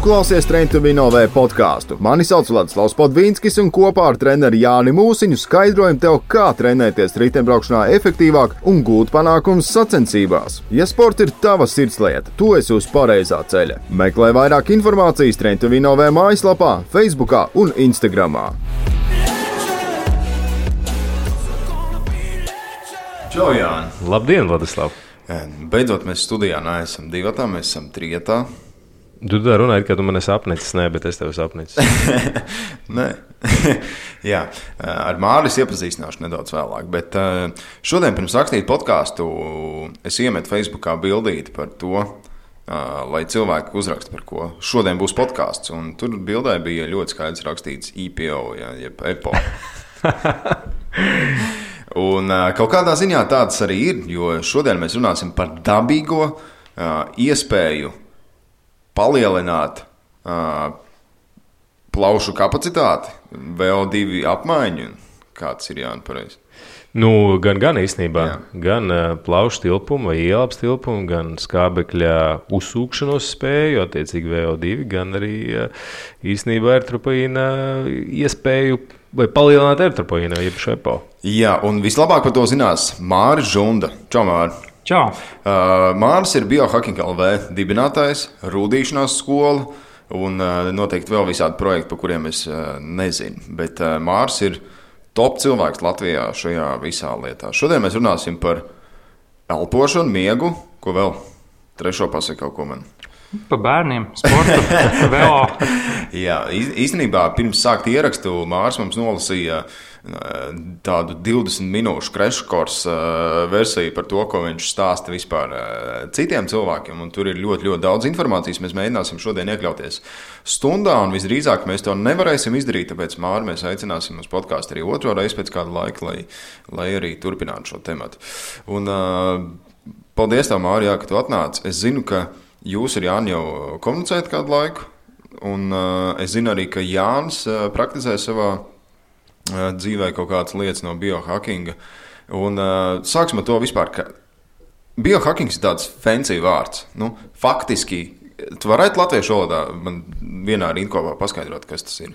klausies Train to Win OV podcastu. Mani sauc Vladislavs Podvīnskis un kopā ar treneri Jāni Mūsiņu skaidrojam tev, kā trenēties riteņbraukšanā efektīvāk un gūt panākumus sacensībās. Ja sports ir tava sirdslieta, tu esi uz pareizā ceļa. Meklē vairāk informācijas Train to Win OV mājaslapā, Facebookā un Instagramā. Čau, Jāni! Labdien, Vladislav! Beidzot, mēs studijā neesam divatā, mēs esam trietā. Tu tā runāji, ka tu man esi apnicis, nē, bet es tev esmu apnicis. Nē, jā, ar Māris iepazīstināšu nedaudz vēlāk, bet šodien pirms rakstīt podcastu es iemetu Facebookā bildīti par to, lai cilvēki uzraksta, par ko šodien būs podcasts, un tur bildē bija ļoti skaidrs rakstīts EPO, jeb EPO. Un kaut kādā ziņā tāds arī ir, jo šodien mēs runāsim par dabīgo iespēju palielināt plaušu kapacitāti, VO2 apmaiņu. Kāds ir Jāni pareizi? Nu, gan īstenībā. Jā. Gan plaušu tilpumu vai ieelpas tilpumu, gan skābekļa uzsūkšanos spēju, attiecīgi VO2, gan arī īstenībā eritropoīna iespēju vai palielināt eritropoīnu, jeb šo EPO. Jā, un vislabāk par to zinās Māris Žunda. Čau, Māri! Čau! Māris ir Biohacking LV dibinātājs, rūdīšanās skola un noteikti vēl visādi projekti, par kuriem es nezinu. Bet Māris ir top cilvēks Latvijā šajā visā lietā. Šodien mēs runāsim par elpošanu, miegu, ko vēl trešo pasaka kaut ko man. Par bērniem, sportu, VO. Jā, īstenībā pirms sākt ierakstu Māris mums nolasīja tādu 20 minūšu crash course versiju par to, ko viņš stāsta vispār citiem cilvēkiem, un tur ir ļoti, ļoti daudz informācijas. Mēs mēģināsim šodien iekļauties stundā, un visdrīzāk mēs to nevarēsim izdarīt, tāpēc Māri mēs aicināsim uz podcastu arī otro reizi pēc kāda laika, lai arī turpinātu šo tematu. Un paldies tev, Māri, jā, ka tu atnāc. Es zinu, ka jūs ar Jāni jau komunicējat kādu laiku, un es zinu arī, ka Jānis praktizē savā dzīvē kaut kādas lietas no biohackinga. Un sāksim ar to vispār, ka biohackings ir tāds fancy vārds. Nu, faktiski, tu varētu latviešu valodā man vienā rindkopā paskaidrot, kas tas ir?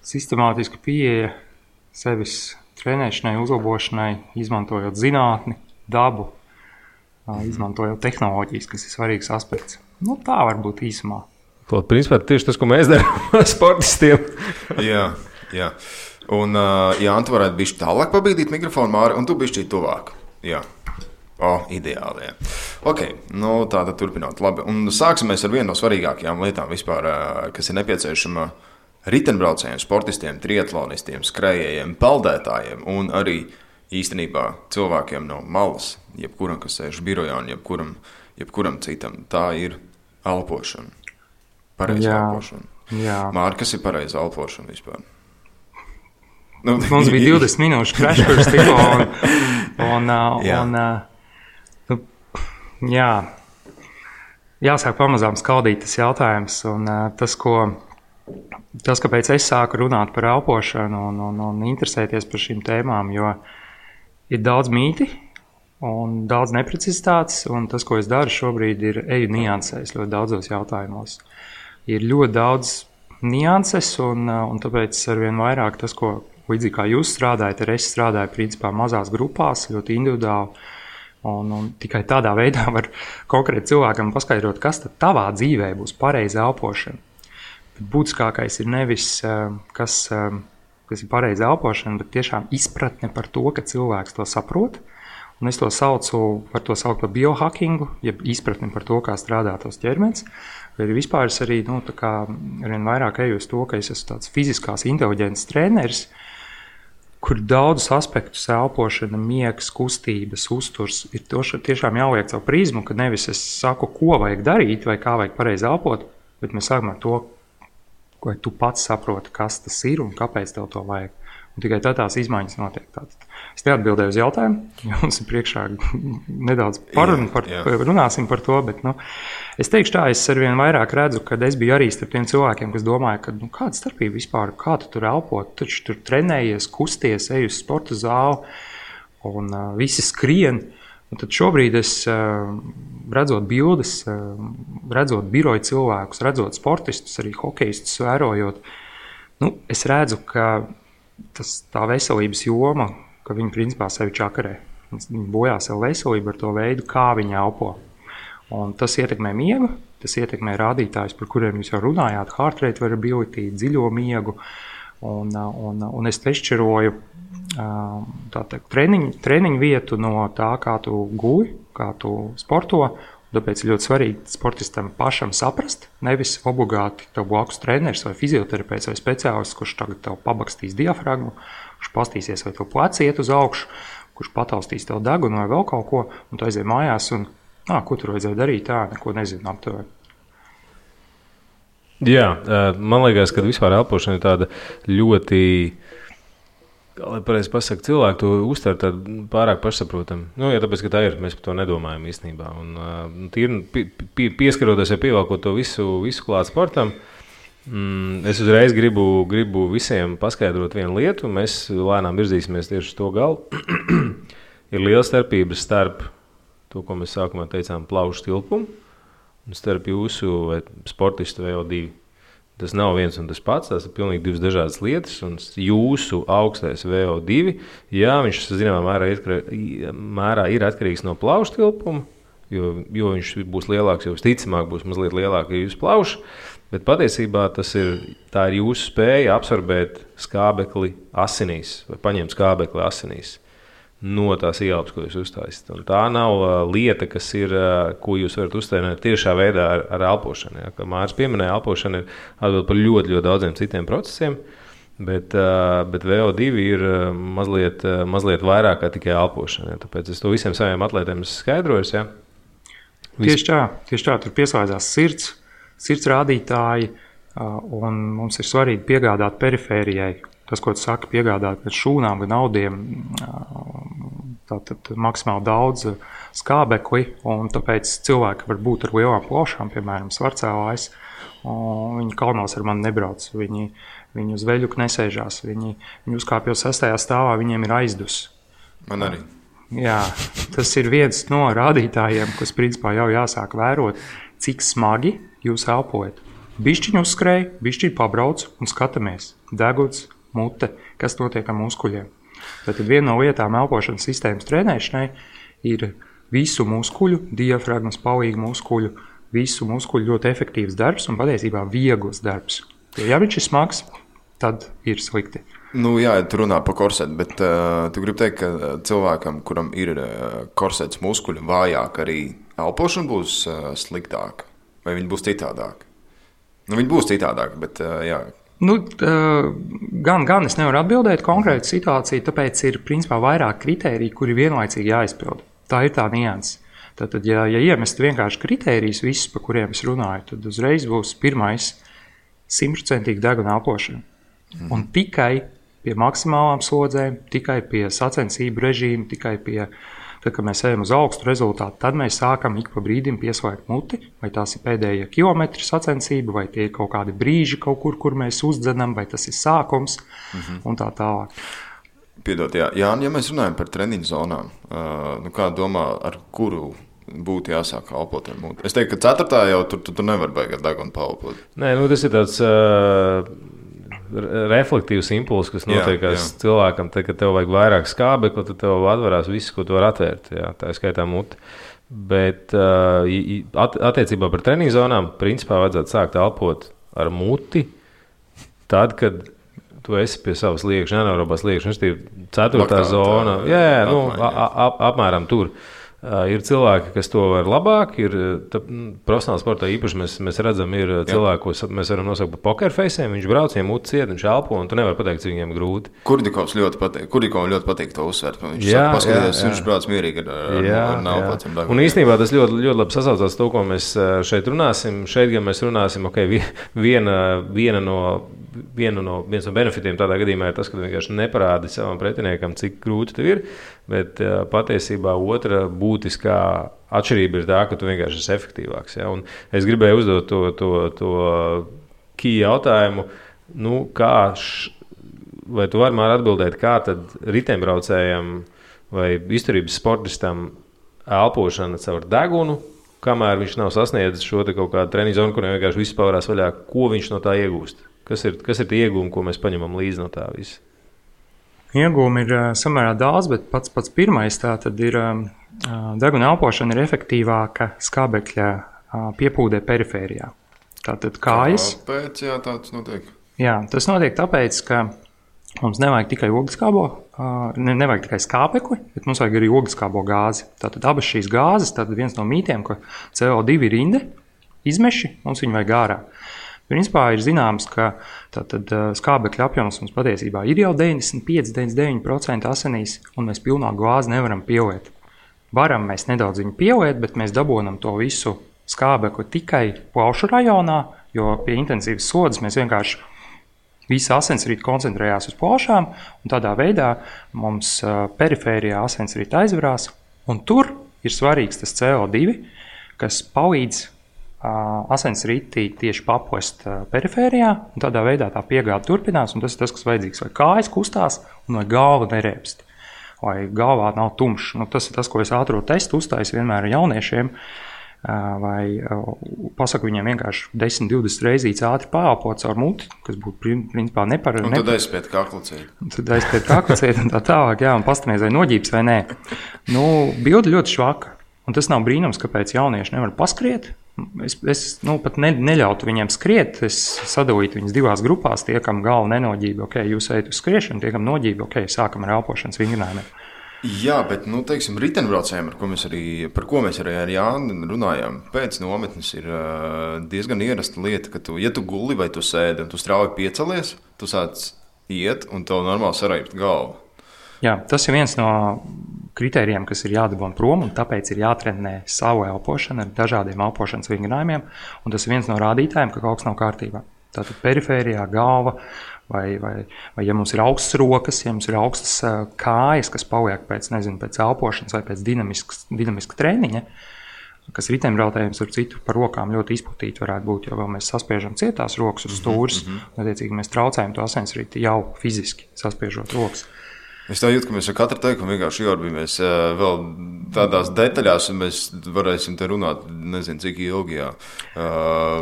Sistemātiska pieeja sevis trenēšanai, uzlabošanai, izmantojot zinātni, dabu, izmantojot tehnoloģijas, kas ir svarīgs aspekts. Nu, tā var būt īsumā. Principā tieši tas, ko mēs darām sportistiem. Jā. Un Jāni, tu varētu bišķi tālāk pabīdīt mikrofonu, Māri, un tu bišķi tuvāk. Jā. Ideāli, jā. Ok, nu tā tad turpināt. Labi, un sāksimies ar vienu no svarīgākajām lietām vispār, kas ir nepieciešama riteņbraucējiem, sportistiem, triatlonistiem, skrējējiem, peldētājiem un arī īstenībā cilvēkiem no malas, jebkuram, kas sēž birojā un jebkuram citam. Tā ir elpošana. Pareiza elpošana. Jā. Māri, kas ir pareiza elpošana vispār? Mums bija 20 minūšu crash course tikko, jāsāk pamazām skaldīt tas jautājums. Un tas, kāpēc es sāku runāt par elpošanu un interesēties par šīm tēmām, jo ir daudz mīti un daudz neprecizitātes, un tas, ko es daru šobrīd, ir eju niansēs ļoti daudzos jautājumos. Ir ļoti daudz nianses, un tāpēc arvien vairāk tas, ko līdzīgi kā jūs strādājat, arī es strādāju principā mazās grupās, ļoti individuāli, un tikai tādā veidā var konkrēti cilvēkam paskaidrot, kas tad tavā dzīvē būs pareiza elpošana. Bet būtiskākais ir nevis, kas ir pareiza elpošana, bet tiešām izpratne par to, ka cilvēks to saprot, un es to saucu par biohackingu, jeb izpratni par to, kā strādā tos ķermenis. Vai vispār es arī arvien vairāk eju uz to, ka es esmu tāds fiziskās inteliģences treneris, kur daudzus aspektus elpošana, miegs, kustības, uzturs ir tiešām jāliek caur prizmu, ka nevis es saku, ko vajag darīt vai kā vajag pareizi elpot, bet mēs sākam ar to, ko tu pats saproti, kas tas ir un kāpēc tev to vajag. Un tikai tad tās izmaiņas notiek. Tātad. Es neatbildēju uz jautājumu, jo mums ir priekšā nedaudz runāsim par to, bet es teikšu tā, es arvien vairāk redzu, kad es biju arī starp tiem cilvēkiem, kas domāja, ka kāda starpība vispār, kā tu tur elpot, taču tur trenējies, kusties, ej uz sporta zāli un visi skrien. Un tad šobrīd es redzot bildes, redzot biroja cilvēkus, redzot sportistus, arī hokejistus vērojot, es redzu, ka tā veselības joma, ka viņi principā sevi čakarē. Viņi bojā savu veselību ar to veidu, kā viņi elpo. Un tas ietekmē miegu, tas ietekmē rādītājus, par kuriem jūs jau runājāt, heart rate variability, dziļo miegu, un es tešķiroju treniņu vietu no tā, kā tu guļ, kā tu sporto. Tāpēc ir ļoti svarīgi sportistam pašam saprast, nevis obligāti tev blakus treneris vai fizioterapeits vai speciālists, kurš tagad tev pabakstīs diafragmu, kurš pastīsies, vai tev pleci iet uz augšu, kurš pataustīs tev degunu vai vēl kaut ko, un tu aizies mājās un, ko tur vajadzēja darīt, neko nezinu aptuveni. Jā, man liekas, ka vispār elpošana ir tāda ļoti, lai pareizi pasaka, cilvēku to uztver tādu pārāk pašsaprotam. Ja tāpēc, ka tā ir, mēs par to nedomājam īstenībā. Un pieskaroties vai pievalkot to visu klāt sportam, es uzreiz gribu visiem paskaidrot vienu lietu. Mēs lēnām virzīsimies tieši uz to galu. Ir liela starpība starp to, ko mēs sākumā teicām, plaušu tilpumu, un starp jūsu sportistu VO2. Tas nav viens un tas pats, tās ir pilnīgi divas dažādas lietas, un jūsu augstais VO2, viņš zināmā mērā ir atkarīgs no plaušu tilpuma, jo viņš būs lielāks, jo visticamāk būs mazliet lielāka jūsu plauša, bet patiesībā tā ir jūsu spēja absorbēt skābekli asinīs, vai paņemt skābekli asinīs no tās ieelpas, ko jūs uztaisat. Un tā nav lieta, kas ir, ko jūs varat uztaināt tiešā veidā ar elpošanu. Ja? Kā Māris pieminēja, elpošana ir atbild par ļoti, ļoti daudziem citiem procesiem, bet VO2 ir mazliet vairāk kā tikai elpošana. Ja? Tāpēc es to visiem saviem atlētiem skaidroju. Ja? Tieši tā, tur pieslēdzās sirds rādītāji, un mums ir svarīgi piegādāt perifērijai. Tas, ko tu saki, piegādāt gan šūnām, gan audiem, tātad maksimāli daudz skābekli, un tāpēc cilvēki var būt ar lielām plaušām, piemēram, svarcēlājs, viņi kalnos ar mani nebrauc, viņi uz veļuku nesēžās, viņi uzkāpjot 6. stāvā, viņiem ir aizdus. Man arī. Jā, tas ir viens no rādītājiem, kas principā jau jāsāk vērot, cik smagi jūs elpojat. Bišķiņu uzskrēj, bišķiņu pabrauc un skatāmies. Deguns, mute, kas notiek ar muskuļiem. Tad viena no lietām elpošanas sistēmas trenēšanai ir visu muskuļu, diafragmas, palīgu muskuļu, visu muskuļu ļoti efektīvs darbs un patiesībā viegls darbs. Jo ja viņš ir smags, tad ir slikti. Jā, tu runā par korsetu, bet tu gribi teikt, ka cilvēkam, kuram ir korsets muskuļi vājāk, arī elpošana būs sliktāka? Vai viņi būs citādāk? Viņi būs citādāk, bet jā. Gan es nevaru atbildēt konkrētu situāciju, tāpēc ir principā vairāk kritēriju, kuri vienlaicīgi jāizpilda. Tā ir tā nianse. Tātad, ja iemest vienkārši kritērijus visus, par kuriem es runāju, tad uzreiz būs pirmais 100% deguna elpošana. Un tikai pie maksimālām slodzēm, tikai pie sacensību režīma, tikai pie tad, kad mēs ejam uz augstu rezultātu, tad mēs sākam ik pa brīdim pieslēgt muti, vai tās ir pēdējie kilometri sacensība, vai tie ir kaut kādi brīži kaut kur mēs uzdzenam, vai tas ir sākums, un tā tālāk. Piedod, jā, ja mēs runājam par treniņu zonām, kā domā, ar kuru būtu jāsāk elpot ar muti? Es teiktu, ka 4. jau tu nevar beigāt degunu paelpot. Nē, tas ir tāds reflektīvs impulss, kas notiekās cilvēkam, tad, kad tev vajag vairāk skābekli, tad tev atverās viss, ko tu var atvērt, tā ir skaitā muti. Bet attiecībā par treniņu zonām, principā vajadzētu sākt elpot ar muti tad, kad tu esi pie savas liekšņa, anaerobās liekšņa, tas ir 4. zona, apmēram tur. Ir cilvēki, kas to var labāk, ir profesionāli sportā īpaši mēs redzam, ir cilvēki, ko mēs varam nosaukt par pokerfeisiem, viņš brauc, viņiem muti ciet, viņš elpo, un tu nevar pateikt, cik viņiem grūti. Kurdikovam ļoti patīk to uzsvērt, viņš saka, paskaties, viņš brauc mierīgi ar elpociem. Un īstenībā tas ļoti, ļoti labi sasaucās to, ko mēs šeit runāsim. Šeit gan mēs runāsim, viens no benefitiem tādā gadījumā ir tas, ka vienkārši neparādi savam pretiniekam, cik grūti tev ir, bet patiesībā otra būtiskā atšķirība ir tā, ka tu vienkārši esi efektīvāks. Ja? Un es gribēju uzdot to key jautājumu, vai tu vari man atbildēt, kā tad riteņbraucējam vai izturības sportistam elpošana caur degunu, kamēr viņš nav sasniedzis šo kaut kādu treniņu zonu, kuriem vienkārši viss pavarās vaļā, ko viņš no tā iegūst? Kas ir tie iegūmi, ko mēs paņemam līdzi no tā visa? Iegūmi ir samērā daudz, bet pats pirmais tā tad ir deguna elpošana ir efektīvāka skābekļa piepūdē perifērijā. Tātad kājas. Kāpēc, jā, tāds notiek? Jā, tas notiek tāpēc, ka mums nevajag tikai ogleskābo, nevajag tikai skābekli, bet mums vajag arī ogleskābo gāzi. Tātad abas šīs gāzes, tātad viens no mītiem, ka CO2 ir inde, izmeši, mums viņu vajag ārā. Principā ir zināms, ka skābekļa apjoms mums patiesībā ir jau 95–99% asinīs, un mēs pilnā gāzi nevaram pieliet. Varam mēs nedaudz viņu pieliet, bet mēs dabonam to visu skābekli tikai plaušu rajonā, jo pie intensīvas slodzes mēs vienkārši visa asinsrite koncentrējās uz plaušām, un tādā veidā mums perifērijā asinsrite aizvarās, un tur ir svarīgs tas CO2, kas palīdz asinsriti tieši paplest perifērijā, un tādā veidā tā piegāde turpinās, un tas ir tas, kas vajadzīgs, vai kājas kustās, un vai galva nerēpst, vai galvā nav tumšs. Tas ir tas, ko es ātro testu uztāju vienmēr ar jauniešiem, vai pasaku viņiem vienkārši 10–20 reizītes ātri pāelpot caur muti, kas būtu principā neparasti. Un tad aizspiet kaklicēt. Tad aizspiet kaklicēt un tā tālāk, jā, un pastamies, vai noģības vai nē. Bilde ļoti švaka, un tas nav brīnums, kāpēc jaunieši nevar paskriet. Es pat neļautu viņiem skriet, es sadalītu viņus divās grupās, tie, kam galva nenoģība, jūs ejat uz skriešanu, tie, kam noģība, sākam ar elpošanas vingrinājumiem. Jā, bet, teiksim, riteņbraucējiem, par ko mēs arī ar Jāni runājām, pēc nometnes ir diezgan ierasta lieta, ka ja tu guli vai tu sēdi un tu strauji piecelies, tu sāc iet un tev normāli saraibt galvu. Jā, tas ir viens no kritērijiem, kas ir jādabon prom, un tāpēc ir jātrenē savu elpošanu ar dažādiem elpošanas vingrinājumiem, un tas ir viens no rādītājiem, ka kaut kas nav kārtībā. Tātad perifērijā galva, vai ja mums ir augstas rokas, ja mums ir augstas kājas, kas paliek pēc elpošanas vai pēc dinamiska treniņa, kas riteņbraucējiem ar citu par rokām ļoti izplatīti varētu būt, jo vēl mēs saspiežam cietās rokas uz stūres, attiecīgi mēs traucējam to asinsriti jau fiziski saspiežot rokas. Es tā jūtu, ka mēs ar katru teikumu vienkārši ieorbīmies vēl tādās detaļās, un mēs varēsim te runāt, nezinu, cik ilgi, jā.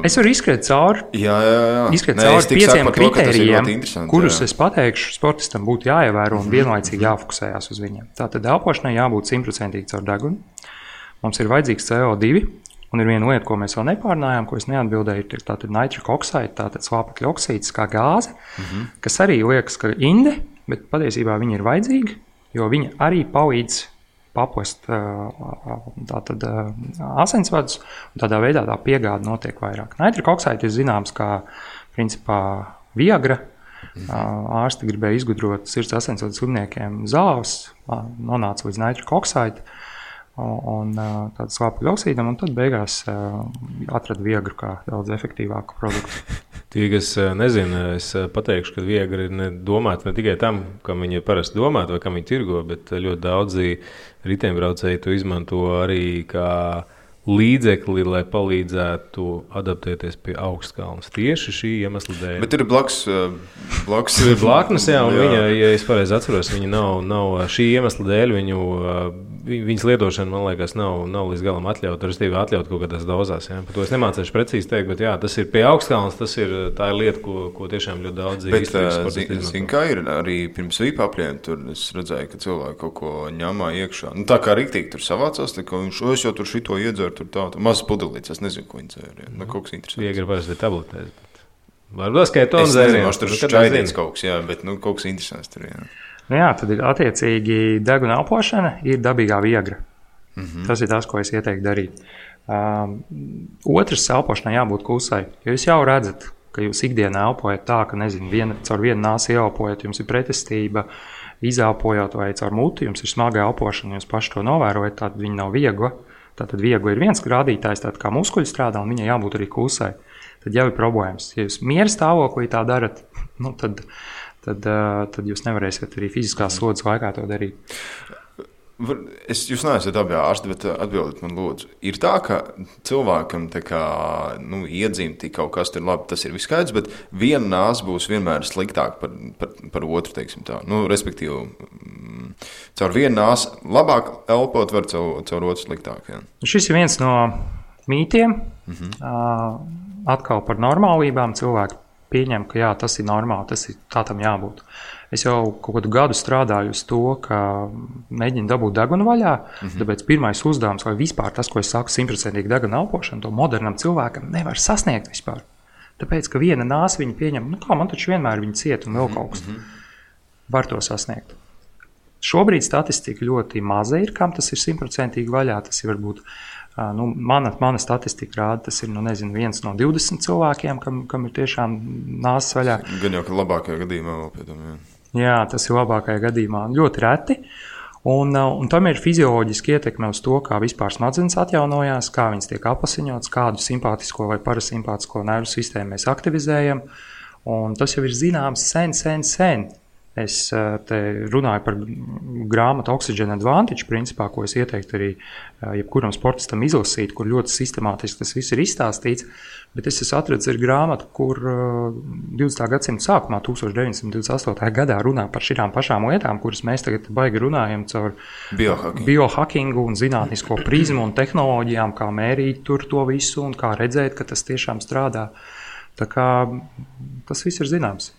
Es varu izskriet cauri. Jā. Izskriet cauri 5 kritērijiem, kurus es pateikšu, sportistam būtu jāievēro un vienlaicīgi jāfokusējās uz viņiem. Tātad elpošanai jābūt 100% caur degunu. Mums ir vajadzīgs CO2, un ir viena lieta, ko mēs vēl nepārnājām, ko es neatbildēju, ir tātad nitric oxide, tātad slāpekļa oksīds kā gāze, kas arī liekas, ka inde, bet patiesībā viņi ir vajadzīgi, jo viņi arī palīdz paplest asinsvadus, un tādā veidā tā piegāde notiek vairāk. Nitric oxide ir zināms kā principā Viagra. Ārsti gribēja izgudrot sirds asinsvadu slimniekiem zāles, nonāca līdz nitric oxide un tādu slāpekļa oksīdam, un tad beigās atrada Viagru kā daudz efektīvāku produktu. Tie, kas nezina, es pateikšu, ka Viagra ir domāta ne tikai tam, kam viņi ir parasti domāta vai kam viņi tirgo, bet ļoti daudzi riteņbraucēji to izmanto arī kā līdzekli, lai palīdzētu adaptēties pie augstkalnes. Tieši šī iemesla dēļ. Bet ir blakus blaknes, jā, un viņa, ja es pareizi atceros, viņa nav šī iemesla dēļ, viņas lietošana, man liekas, nav līdz galam atļauta, respektīvi atļaut kaut kādās dozās. Ja? Par to es nemācēšu precīzi teikt, bet jā, tas ir pie augstkalnes, tā ir lieta, ko tiešām ļoti daudz sportisti izmanto. Zin, kā ir arī pirms vīpa apļiem, tur es redzēju, ka cilvēki kaut ko ņemā iekšā. Tā kā riktīgi tur savācās, ka es jau tur šito iedzeru, tur tā mazas pudelītes, es nezinu, ko viņi dzēru. Ja? Kaut kas interesants. Viegri parasti tabletēs, bet varbūt skaitot es nezinu, tur šķaidīts kaut kas, jā, bet kaut kas interesants tur, jā. Jā, tad ir attiecīgi deguna elpošana ir dabīgā Viagra. Tas ir tas, ko es ieteiktu darīt. Otrs elpošanai jābūt klusai. Jo jūs jau redzat, ka jūs ikdienā elpojat tā, ka, caur vienu nāsi elpojat, jums ir pretestība, izelpojot vai caur muti, jums ir smaga elpošana, jūs paši to novērojat, tātad viņa nav viegla. Tātad viegla ir viens rādītājs, tātad kā muskuļi strādā, un viņai jābūt arī klusai. Tad jau ir problēmas. Ja jūs miera stāvoklī tā darat, tad jūs nevarēsiet arī fiziskās slodzes laikā to darīt. Jūs neesat abi ārsti, bet atbildiet man lūdzu. Ir tā, ka cilvēkam iedzimti kaut kas tur labi, tas ir viss skaidrs, bet viena nāsa būs vienmēr sliktāk par otru, teiksim tā. Respektīvi, caur vienu nāsu labāk elpot var caur otru sliktāk. Jā. Šis ir viens no mītiem, atkal par normālībām. Cilvēki pieņem, ka jā, tas ir normāli, tā tam jābūt. Es jau kaut kādu gadu strādāju uz to, ka mēģinu dabūt degunu vaļā, tāpēc pirmais uzdevums vai vispār tas, ko es saku, 100% deguna elpošana, to modernam cilvēkam nevar sasniegt vispār. Tāpēc, ka viena nāsa viņa pieņem, man taču vienmēr viņa ciet un vēl kaut kas. Var to sasniegt. Šobrīd statistika ļoti maza ir, kam tas ir 100% vaļā. Tas ir varbūt, mana statistika rāda, tas ir, 1 no 20 cilvēkiem, kam ir tiešām nāsas vaļā. Gan jau, ka labākajā gadījumā vēl pie tam, Jā, tas ir labākajā gadījumā. Ļoti reti. Un tam ir fizioloģiski ietekme uz to, kā vispār smadzenes atjaunojās, kā viņas tiek apasiņotas, kādu simpātisko vai parasimpātisko nervu sistēmu mēs aktivizējam. Un tas jau ir zināms sen. Es te runāju par grāmatu Oxygen Advantage, principā, ko es ieteiktu arī jebkuram sportistam izlasīt, kur ļoti sistemātiski tas viss ir izstāstīts. Bet es esmu atradis arī grāmatu, kur 20. gadsimta sākumā, 1928. gadā runā par šīm pašām lietām, kuras mēs tagad baigi runājam caur biohackingu un zinātnisko prizmu un tehnoloģijām, kā mērīt tur to visu un kā redzēt, ka tas tiešām strādā. Tā kā tas viss ir zināms.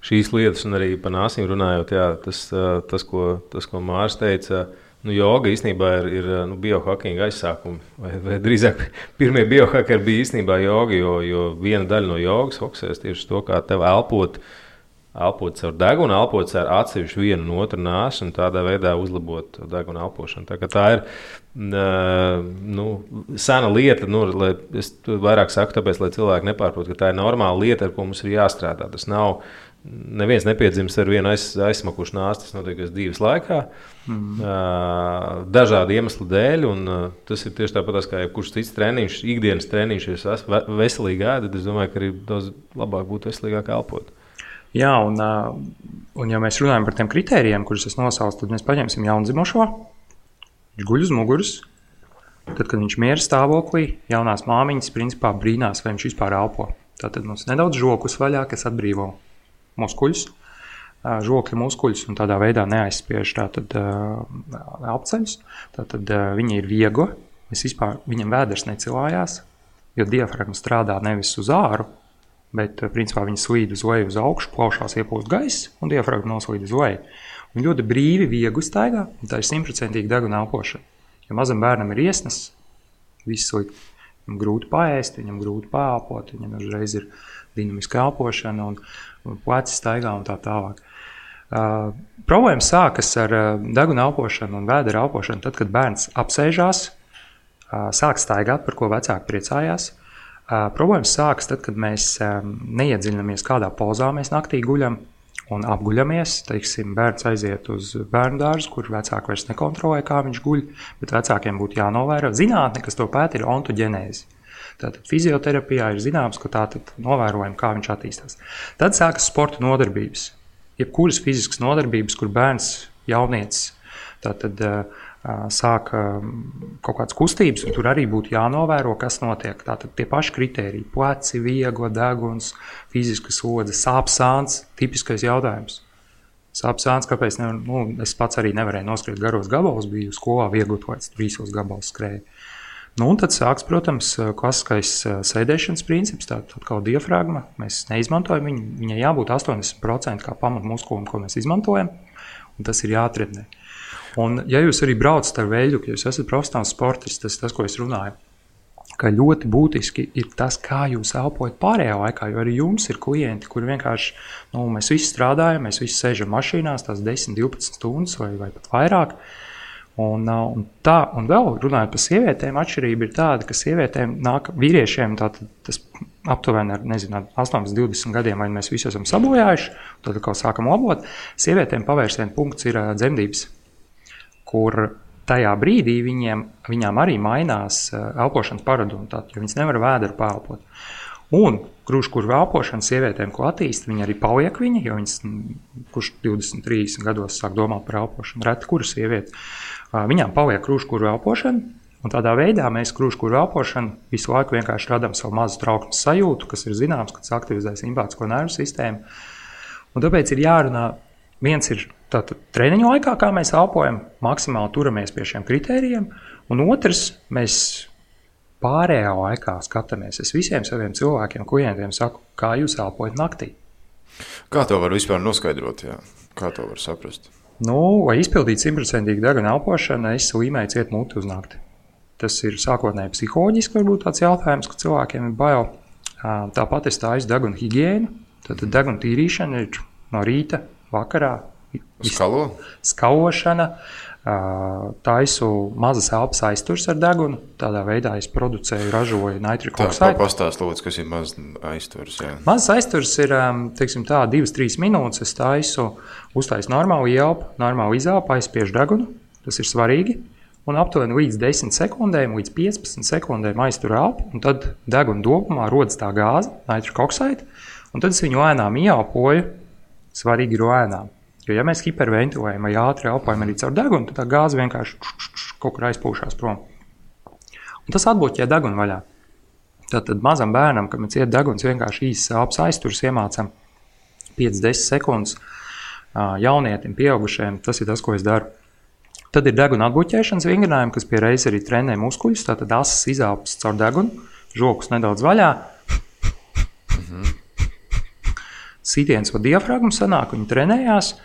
Šīs lietas, un arī par nāsīm runājot, jā, tas, ko Māris teica, joga īstenībā ir biohackinga aizsākumi. Vai drīzāk pirmie biohackeri bija īstenībā joga, jo viena daļa no jogas fokusēs tieši to, kā tev elpot caur degunu, elpot caur atsevišķu vienu un otru nāsu un tādā veidā uzlabot degunu elpošanu. Tā ir sena lieta, lai es vairāk saku, tāpēc, lai cilvēki nepārprot, ka tā ir normāla lieta, ar ko mums ir jāstrādā. Tas nav neviens nepiedzimst ar vienu aizsmakušu nāsti, tas notiek dzīves laikā, dažādu iemeslu dēļ, un tas ir tieši tāpat, kā jebkurš cits treniņš, ikdienas treniņš, ja es veselīgi ēdu, tad es domāju, ka arī daudz labāk būtu veselīgāk elpot. Jā, un ja mēs runājam par tiem kritērijiem, kurus es nosaucu, tad mēs paņemsim jaundzimušo, viņš guļ uz muguras, tad, kad viņš miera stāvoklī, jaunās māmiņas principā brīnās, vai viņš vispār elpo. Tātad mums nedaudz žokus vaļā, kas atbrīvo muskuļus, žokļu muskuļus un tādā veidā neaizspiež elpceļus. Tātad viņi ir viegli, viņam vēders necilājās, jo diafragma strādā nevis uz āru, bet principā viņi slīd uz leju uz augšu, plaušās iepūst gaiss un diafragma noslīd uz leju. Viņi ļoti brīvi, viegli staigā, un tā ir 100% deguna elpošana. Ja mazam bērnam ir iesnas, viss slikti. Viņam grūti paēst, viņam grūti paelpot, viņam uzreiz ir dinamiska elpošana un pleci staigā un tā tālāk. Problēmas sākas ar deguna elpošanu un vēdera elpošanu tad, kad bērns apsēžās, sāk staigāt, par ko vecāki priecājās. Problēmas sākas tad, kad mēs neiedziļinamies, kādā pozā mēs naktī guļam un apguļamies. Teiksim, bērns aiziet uz bērnu dārzu, kur vecāki vairs nekontrolē, kā viņš guļ, bet vecākiem būtu jānovēro. Zinātne, kas to pēta, ir ontoģenēze. Tātad fizioterapijā ir zināms, ka tātad novērojam, kā viņš attīstās. Tad sākas sporta nodarbības. Jebkuras fiziskas nodarbības, kur bērns, jaunietis, tātad sāk kaut kādas kustības, un tur arī būtu jānovēro, kas notiek. Tātad tie paši kritēriji - pleci, viegla, deguns, fiziska slodze, sāpsāns, tipiskais jautājums. Sāpsāns, kāpēc es pats arī nevarēju noskriet garos gabalus, biju skolā vieglotlaids, 3 gabalus skrēju. Un tad sāks, protams, klasiskais sēdēšanas princips, tātad atkal diafragma. Mēs neizmantojam viņu, viņai jābūt 80% kā pamatmuskulim, ko mēs izmantojam, un tas ir jātrenē. Un ja jūs arī braucat ar veļu, ka jūs esat profesionāls sportists, tas, ko es runāju, ka ļoti būtiski ir tas, kā jūs elpojat pārējā laikā, jo arī jums ir klienti, kuri vienkārši, mēs visi strādājam, mēs visi sēžam mašīnās, tās 10-12 stundas vai pat vairāk. Un vēl runājot par sievietēm, atšķirība ir tāda, ka sievietēm nāk vīriešiem tas aptuveni ar 18-20 gadiem, vai mēs visi esam sabojājuši, tad atkal sākam labot. Sievietēm pavērsiena punkts ir dzemdības, kur tajā brīdī viņām arī mainās elpošanas paradumi, jo viņas nevar vēderu pāelpot. Un krūškurvu elpošana sievietēm, ko attīst, viņi arī paliek viņi, jo viņas, kurš 20-30 gados sāk domāt par elpošanu, reti kura sieviete. Viņām paliek krūškurvu elpošana, un tādā veidā mēs krūškurvu elpošanu visu laiku vienkārši radām savu mazu trauksmes sajūtu, kas ir zināms, ka tas aktivizē simpātisko nervu sistēmu. Un tāpēc ir jārunā, viens ir tātad treniņu laikā, kā mēs elpojam, maksimāli turamies pie šiem kritērijiem, un otrs, mēs pārējā laikā skatāmies. Es visiem saviem cilvēkiem, klientiem saku, kā jūs elpojat naktī. Kā to var vispār noskaidrot? Jā? Kā to var saprast? Lai izpildītu 100% deguna elpošanu, es līmēju ciet muti uz nakti. Tas ir sākotnēji psiholoģiski varbūt tāds jautājums, ka cilvēkiem ir bail. Tāpat es taisu deguna higiēnu. Tad deguna tīrīšana ir no rīta, vakarā. Skalošana. Taisu mazas elpas aizturs ar degunu. Tādā veidā es producēju, ražoju nitriku oksīdu. Pastāst lūdzu, kas ir mazas aizturs. Jā. Mazas aizturs ir, teiksim tā, 2-3 minūtes. Es uztaisu normālu ielpu, normālu izelpu, aizspiežu degunu. Tas ir svarīgi. Un aptuveni līdz 10 sekundēm, līdz 15 sekundēm aizturu elpu. Un tad deguna dobumā rodas tā gāze, nitriku oksīdu. Un tad es viņu lēnām ieelpoju. Svarīgi ir lēnām. Jo, ja mēs hiperventilējam vai ātri elpojam arī caur degunu, tad tā gāze vienkārši kaut kur aizpūšās prom. Un tas atbloķē degunu vaļā. Tad mazam bērnam, kad mēs iet deguns, vienkārši īsas elpas aizturs iemācam 5-10 sekundes. Jaunietim, pieaugušajiem, tas ir tas, ko es daru. Tad ir deguna atbloķēšanas vingrinājumi, kas pie reizes arī trenē muskuļus. Tātad asas izelpas caur degunu, žokus nedaudz vaļā. Sitiens va diafragmu sanāk, viņi trenējās.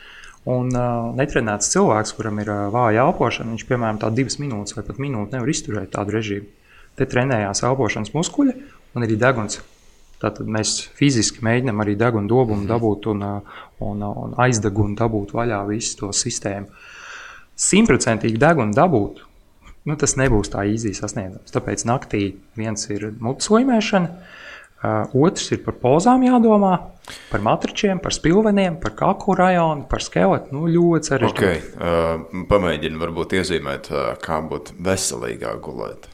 Un netrenēts cilvēks, kuram ir vāja elpošana, viņš, piemēram, tā 2 minūtes vai pat minūti nevar izturēt tādu režīmu. Te trenējās elpošanas muskuļi un arī deguns. Tātad mēs fiziski mēģinām arī degunu dobumu dabūt un aizdegunu dabūt vaļā visu to sistēmu. 100% degunu dabūt, tas nebūs tā īzī sasniedzams. Tāpēc naktī viens ir mutes līmēšana, otrs ir par pozām jādomā, par matričiem, par spilveniem, par kaklu rajonu, par skeletu. Ļoti sarežģīti. Okay. Pamēģini varbūt iezīmēt, kā būt veselīgāk gulēt.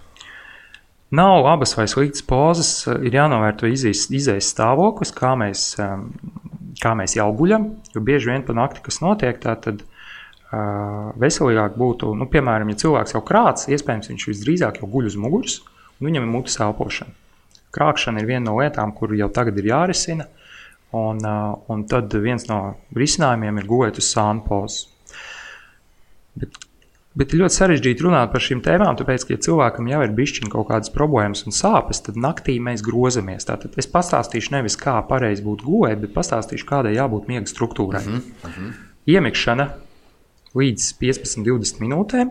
Nav labas vai sliktas pozas, ir jānovērto izējas stāvoklis, kā mēs jau guļam, jo bieži vien pa nakti, kas notiek, tad veselīgāk būtu, piemēram, ja cilvēks jau krāc, iespējams viņš visdrīzāk jau guļ uz muguras, un viņam ir mutes elpošana. Krākšana ir viena no lietām, kur jau tagad ir jārisina, un tad viens no risinājumiem ir gulēt uz sānu pozas. Bet ir ļoti sarežģīti runāt par šīm tēmām, tāpēc, ka ja cilvēkam jau ir bišķiņ kaut kādas problēmas un sāpes, tad naktī mēs grozamies. Tātad es pastāstīšu nevis kā pareizi būt gulēt, bet pastāstīšu, kādai jābūt miega struktūrai. Iemikšana līdz 15-20 minūtēm,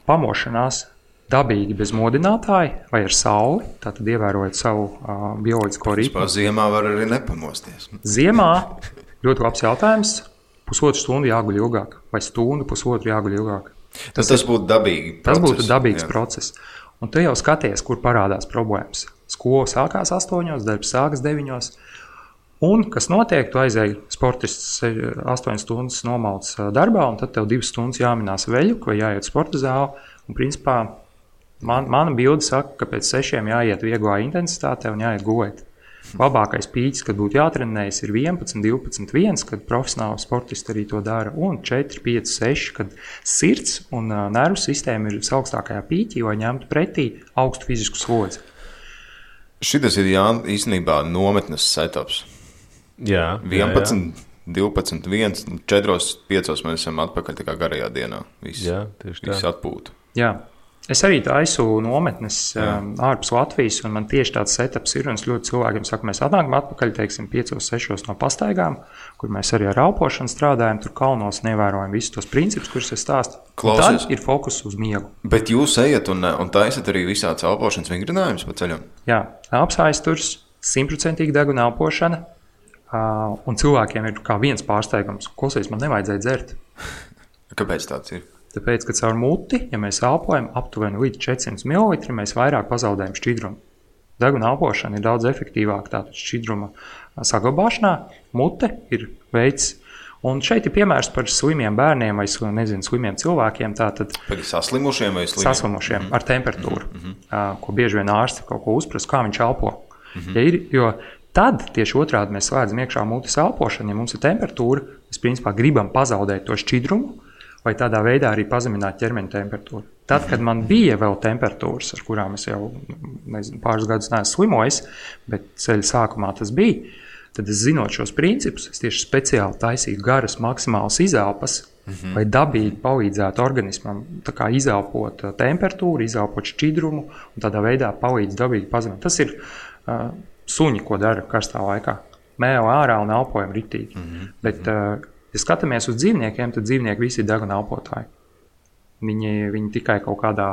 pamošanās dabīgi bez modinātāja vai ar sauli, tātad ievērojot savu bioloģisko ritmu. Vispār ziemā var arī nepamosties. Ziemā ļoti labs jautājums. 1,5 stundu jāguļ ilgāk vai stundu, 1,5 jāguļ ilgāk. Tas būtu dabīgi process. Tas būtu dabīgs process. Un tu jau skaties, kur parādās problēmas. Skola sākās 8, darbs sākas 9. Un, kas notiek, tu aizēji sportists 8 stundas nomalts darbā, un tad tev 2 stundas jāminās veļuk vai jāiet sporta zāli. Un, principā, mana bilde saka, ka pēc 6 jāiet vieglā intensitātē un jāiet gulēt. Labākais pīķis, kad būtu jātrenējas, ir 11, 12, 1, kad profesionāli sportisti arī to dara, un 4, 5, 6, kad sirds un nervu sistēma ir visaugstākajā pīķī, lai ņemtu pretī augstu fizisku slodzi. Šitas ir īstenībā nometnes setups. Jā, 11, 12, 1, 4, 5 mēs esam atpakaļ tā kā garajā dienā. Viss atpūta. Jā. Es arī taisu nometnes ārpus Latvijas, un man tieši tāds setups ir, un es ļoti cilvēkiem saku, mēs atnākam atpakaļ, teiksim, 5, 6 no pastaigām, kur mēs arī ar elpošanu strādājam, tur kalnos nevērojam visus tos principus, kurus es stāstu. Tad ir fokus uz miegu. Bet jūs ejat un taisat arī visāds elpošanas vingrinājumus pa ceļam? Jā, elpas aizturs, 100% deguna elpošana, un cilvēkiem ir kā viens pārsteigums. Klausies, man nevajadzēja dzert. Kāpēc tāds ir? Tāpēc, ka caur muti, ja mēs elpojam aptuveni līdz 400 ml, mēs vairāk pazaudējam šķidrumu. Deguna elpošana ir daudz efektīvāka tātad šķidruma saglabāšanā. Mute ir veids, un šeit ir piemērs par slimiem bērniem vai slimiem cilvēkiem. Tātad saslimušiem vai slimiem? Saslimušiem ar temperatūru, ko bieži vien ārsti kaut ko uzprast, kā viņš elpo. Jo tad tieši otrādi mēs slēdzam iekšā mutes elpošanu, ja mums ir temperatūra, mēs principā gribam pazaudēt to šķidrumu, vai tādā veidā arī pazemināt ķermeņa temperatūru. Tad, kad man bija vēl temperatūras, ar kurām es jau pāris gadus neesmu slimojis, bet ceļa sākumā tas bija, tad es zinot šos principus, es tieši speciāli taisīju garas maksimālas izelpas, lai dabīgi palīdzētu organismam tā kā izelpot temperatūru, izelpot šķidrumu un tādā veidā palīdz dabīgi pazemot. Tas ir suņi, ko dara karstā laikā. Mēl ārā un elpojam ritīgi. Bet, ja skatāmies uz dzīvniekiem, tad dzīvnieki visi ir deguna elpotāji. Viņi tikai kaut kādā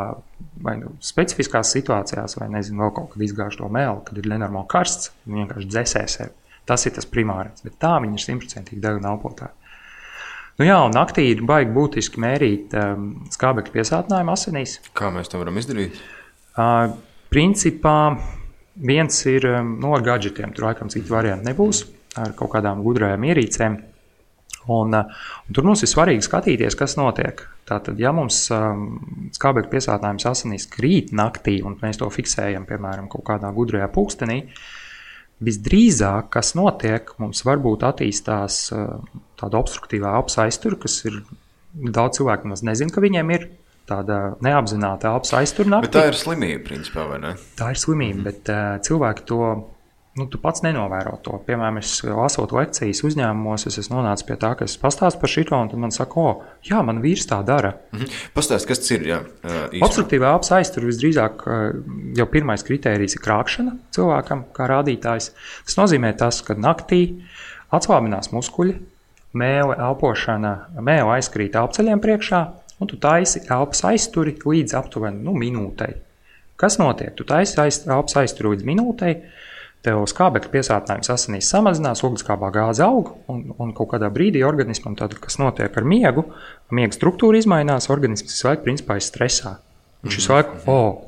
vai specifiskās situācijās, vai nezinu, vēl kaut kad izgāž to mēlu, kad ir nenormāli karsts, viņi vienkārši dzēsē sevi. Tas ir tas primārais, bet tā viņi ir 100% deguna elpotāji. Nu jā, un naktī ir baigi būtiski mērīt skābekļa piesātinājumu asinīs. Kā mēs to varam izdarīt? Principā viens ir ar gadžetiem, tur laikam citu variantu nebūs, ar kaut kādām gudrajām ierīcēm. Un tur mums ir svarīgi skatīties, kas notiek. Tātad, ja mums skābekļa piesātinājums asinīs krīt naktī, un mēs to fiksējam, piemēram, kaut kādā gudrajā pulkstenī, visdrīzāk, kas notiek, mums varbūt attīstās tāda obstruktīvā elpas aiztura, kas ir daudz cilvēku maz nezina, ka viņiem ir tāda neapzināta elpas aiztura naktī. Bet tā ir slimība, principā, vai ne? Tā ir slimība, bet cilvēki to, tu pats nenovēro to. Piemēram, es lasot lekcijas uzņēmumos, es nonācu pie tā, ka es pastāstu par šito, un tad man saka, jā, man vīrs tā dara. Pastāst, kas tas ir, jā? Obstruktīvā elpas aiztura visdrīzāk jau pirmais kritērijs ir krākšana cilvēkam, kā rādītājs. Tas nozīmē tas, ka naktī atslābinās muskuļi, mēle aizkrīt elpceļiem priekšā, un tu taisi elpas aizturi līdz aptuveni minūtei. Kas notiek? Tu taisi elpas aizturi līdz minūtei, tev skābekļa piesātinājums asinīs samazinās, ogliskābā gāze aug, un kaut kādā brīdī organismam, tātad, kas notiek ar miega struktūra izmainās, organisms visu laiku principā ir stresā. Viņš visu laiku,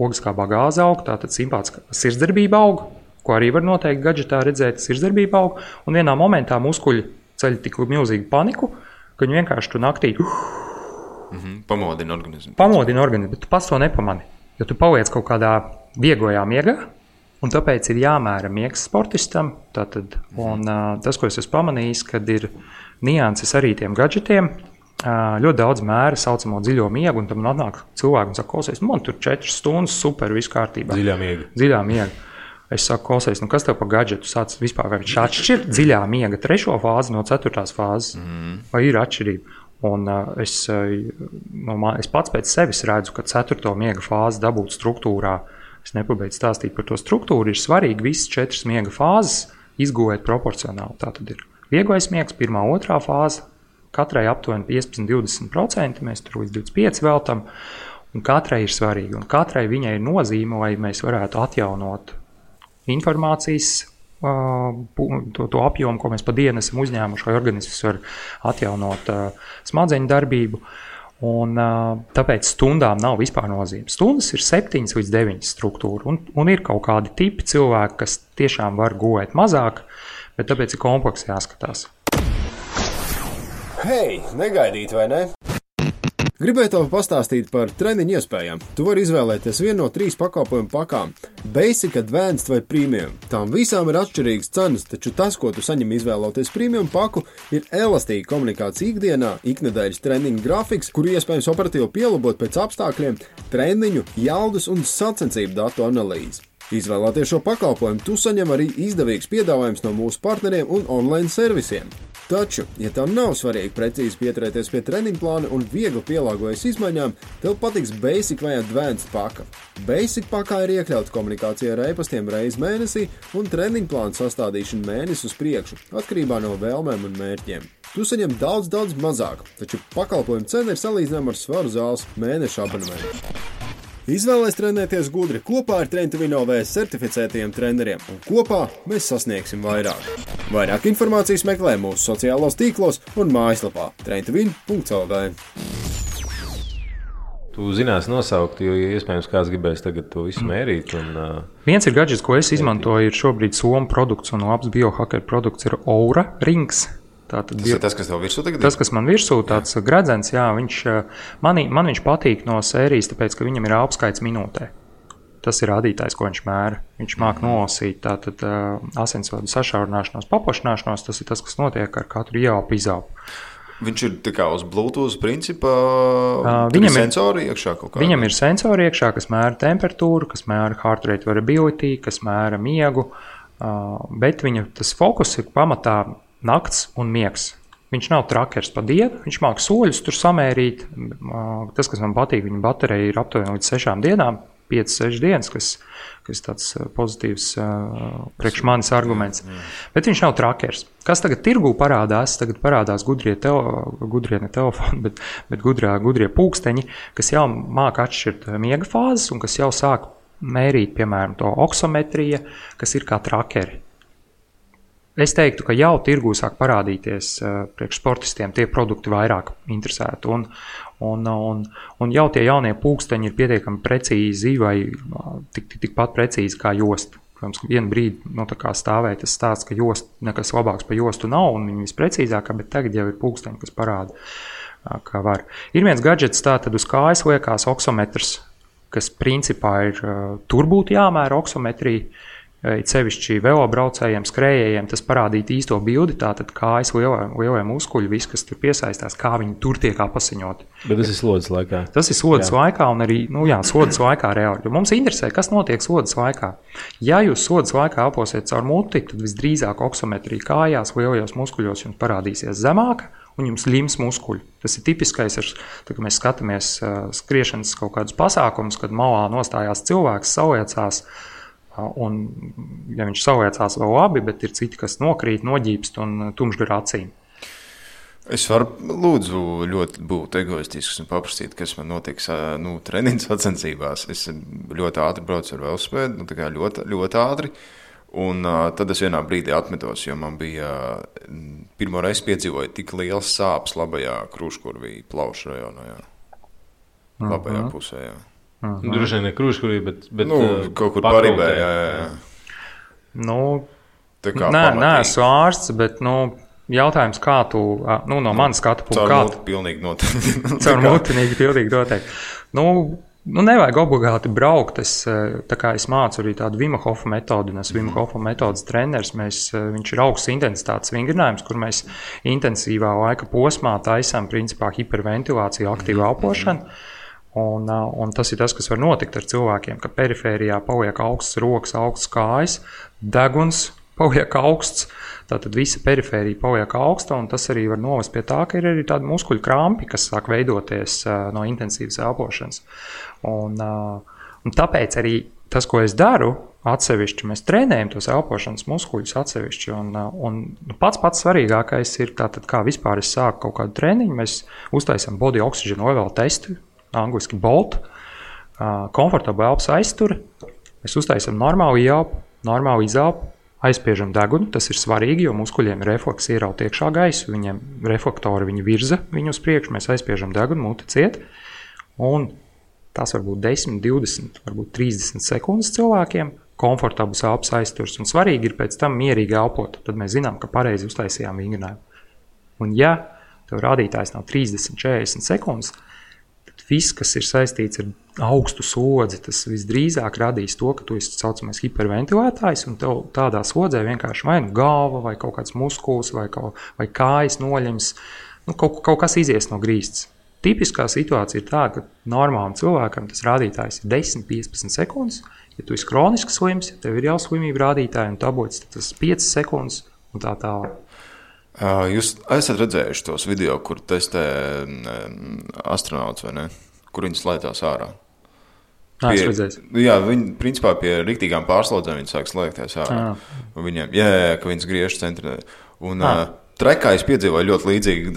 ogliskābā gāze aug, tātad simpātiskā sirdsdarbība aug, ko arī var noteikti gadžetā redzēt, sirdsdarbība aug, un vienā momentā muskuļi ceļ tik milzīgu paniku, ka viņi vienkārši tu naktī pamodina organismu. Bet tu pats to nepamani, jo tu paliec kaut kādā vieglajā miegā, un tāpēc ir jāmēra miegs sportistam. Tātad, un tas, ko es esmu pamanījis, kad ir nianses arī tiem gadžetiem, ļoti daudz mēra saucamo dziļo miegu, un tam atnāk cilvēki un saka, klausies, man tur 4 stundas, super, viss kārtībā. Dziļā miega. Es saku, klausies, kas tev pa gadžetu sāc vispār, vai viņš atšķir dziļā miega 3. fāzi no 4. fāzes, vai ir atšķirība? Un es pats pēc sevis redzu, ka 4. miega fāzi dabūt struktūrā, es nepabeidzu stāstīt par to struktūru, ir svarīgi visas 4 miega fāzes izgulēt proporcionāli. Tā tad ir vieglais miegs, 1. 2. fāze, katrai aptuveni 15-20%, mēs tur līdz 25 veltam, un katrai ir svarīgi, un katrai viņai ir nozīme, lai mēs varētu atjaunot informācijas, to apjomu, ko mēs pa dienu esam uzņēmuši, vai organisms var atjaunot smadzeņu darbību. Un tāpēc stundām nav vispār nozīmes. Stundas ir 7 līdz 9 struktūra, un ir kaut kādi tipi cilvēki, kas tiešām var gulēt mazāk, bet tāpēc ir kompleks jāskatās. Hei, negaidīt vai ne? Gribēju tev pastāstīt par treniņu iespējām. Tu vari izvēlēties vienu no 3 pakalpojumu pakām – Basic, Advanced vai Premium. Tām visām ir atšķirīgas cenas, taču tas, ko tu saņem izvēloties Premium paku, ir elastīga komunikācija ikdienā, iknedēļas treniņu grafiks, kuru iespējams operatīvi pielabot pēc apstākļiem, treniņu, jaudas un sacensību datu analīzi. Izvēlēties šo pakalpojumu, tu saņem arī izdevīgs piedāvājums no mūsu partneriem un online servisiem. Taču, ja tev nav svarīgi precīzi pieturēties pie treniņu plāna un viegli pielāgojas izmaiņām, tev patiks Basic vai Advanced paka. Basic pakā ir iekļauta komunikācija ar e-pastiem reizi mēnesī un treniņu plānu sastādīšana mēnesi uz priekšu, atkarībā no vēlmēm un mērķiem. Tu saņem daudz mazāk, taču pakalpojuma cena ir salīdzināma ar Svaru zāles mēneša abonementu. Izvēlēs trenēties gudri kopā ar Trentuvino VS certificētajiem treneriem, un kopā mēs sasniegsim vairāk. Vairāk informācijas meklē mūsu sociālos tīklos un mājaslapā trentuvino.lv. Tu zinās nosaukt, jo iespējams kāds gribēs tagad to visu mērīt. Viens ir gadžets, ko es izmantoju, ir šobrīd Somu produkts un labs biohacker produkts ir Oura rings. Tas ir tas, kas tev virsū tagad ir? Tas, kas man virsū, tāds gredzens, jā, man viņš patīk no sērijas, tāpēc, ka viņam ir elpskaits minūtē. Tas ir rādītājs, ko viņš mēra. Viņš māk nolasīt tātad asinsvadu sašaurināšanos, paplašināšanos, tas ir tas, kas notiek ar katru ieelpu izelpu. Viņš ir tā kā uz Bluetooth principā, viņam ir sensori iekšā kaut kādā? Viņam ir sensori iekšā, kas mēra temperatūru, kas mēra heart rate variability, kas mēra miegu, bet viņa tas fokus ir pamatā nakts un miegs. Viņš nav trakers pa dienu, viņš māk soļus tur samērīt. Tas, kas man patīk, viņa baterija ir aptuveni līdz 6 dienām, 5-6 dienas, kas tāds pozitīvs priekš manis arguments. Bet viņš nav trakers. Kas tagad tirgū parādās? Tagad parādās gudrie ne telefoni, bet gudrie pulksteņi, kas jau māk atšķirt miega fāzes un kas jau sāk mērīt, piemēram, to oksometrija, kas ir kā trakeri. Es teiktu, ka jau tirgū sāk parādīties priekš sportistiem tie produkti vairāk interesētu. Un jau tie jaunie pulksteņi ir pietiekami precīzi vai tikpat precīzi kā josta. Protams, ka vienu brīdi tā kā stāvēja tas stāsts, ka nekas labāks pa jostu nav un viņi visprecīzākā, bet tagad jau ir pulksteņi, kas parāda, kā var. Ir viens gadžets tātad uz kājas liekās oksometrs, kas principā ir tur būtu jāmēra oksometrija. Sevišķi velobraucējiem, skrējējiem, tas parādīt īsto bildi, tātad kājas lielie muskuļi, viss, kas tur piesaistās, kā viņi tur tiek apaziņoti. Bet tas ir slodzes laikā. Tas ir slodzes laikā un arī, slodzes laikā reāli. Jo mums interesē, kas notiek slodzes laikā. Ja jūs slodzes laikā aposiet caur muti, tad visdrīzāk oksometrija kājās, lielajos muskuļos jums parādīsies zemāka un jums lims muskuļi. Tas ir tipiskais, kad mēs skatāmies skriešanas kaut kādus pasākumus, kad malā nostājās cilvēks, saliecās, un, ja viņš saliecās vēl labi, bet ir citi, kas nokrīt, noģīpst un tumš gar acīm. Es varu lūdzu ļoti būt egoistisks un paprasīt, kas man notiks treniņu sacensībās. Es ļoti ātri braucu ar velospēdu, tā kā ļoti, ļoti ātri. Un tad es vienā brīdī atmetos, jo man bija pirmo reizi piedzīvoju tik liels sāpes labajā krūškurvī plaušu rajonā. Labajā pusē, jā. Droši vien ne krūškurī, bet kaut kur paribē, jā. Neesmu ārsts, bet, jautājums, kā tu, no manas skatu punktu, kā tu? Pilnīgi noteikti. Caur mutinīgi pilnīgi noteikti. Nevajag obligāti braukt. Es mācu arī tādu Vima Hofa metodu, un es Vima Hofa metodas treneris. Viņš ir augsts intensitātes vingrinājums, kur mēs intensīvā laika posmā taisām principā hiperventilāciju, aktīvu elpošanu. Un tas ir tas, kas var notikt ar cilvēkiem, ka perifērijā paliek augsts rokas, augsts kājas, deguns paliek augsts, tātad visa perifērija paliek augsta, un tas arī var novest pie tā, ka ir arī tādi muskuļu krampi, kas sāk veidoties no intensīvas elpošanas. Un tāpēc arī tas, ko es daru, atsevišķi mēs trenējam tos elpošanas muskuļus atsevišķi, un pats svarīgākais ir tātad, kā vispār es sāku kaut kādu treniņu, mēs uztaisam body oxygen level testu, angliski BOLT, komfortabla elpas aiztura, mēs uztaisam normālu ieelpu, normālu izelpu, aizspiežam degunu, tas ir svarīgi, jo muskuļiem ir refleksi ieraut iekšā gaisu, viņiem reflektori viņi virza viņu uz priekšu, mēs aizspiežam degunu, muti ciet, un tas var būt 10, 20, varbūt 30 sekundes cilvēkiem, komfortabls elpas aizturs, un svarīgi ir pēc tam mierīgi elpot, tad mēs zinām, ka pareizi uztaisījām vingrinājumu. Un ja tev rādītājs nav 30, 40 sekundes, viss, kas ir saistīts ar augstu slodzi, tas visdrīzāk radīs to, ka tu esi saucamais hiperventilētājs un tev tādā slodzē vienkārši vai galva, vai kaut kāds muskuls, vai kājas noļems, kaut kas izies no grīstas. Tipiskā situācija ir tā, ka normālam cilvēkam tas rādītājs ir 10-15 sekundes, ja tu esi kroniski slims, ja tev ir jau slimība rādītāji un tabots, tad tas 5 sekundes un tā tālāk. Jūs esat redzējuši tos video, kur testē astronauts, vai ne? Kur viņi slēdzās ārā? Es redzēju. Jā, viņi principā pie riktīgām pārslodzēm viņi sāk slēgties ārā. Viņiem, ka viņas griež centrē. Un trekā es piedzīvoju ļoti līdzīgi,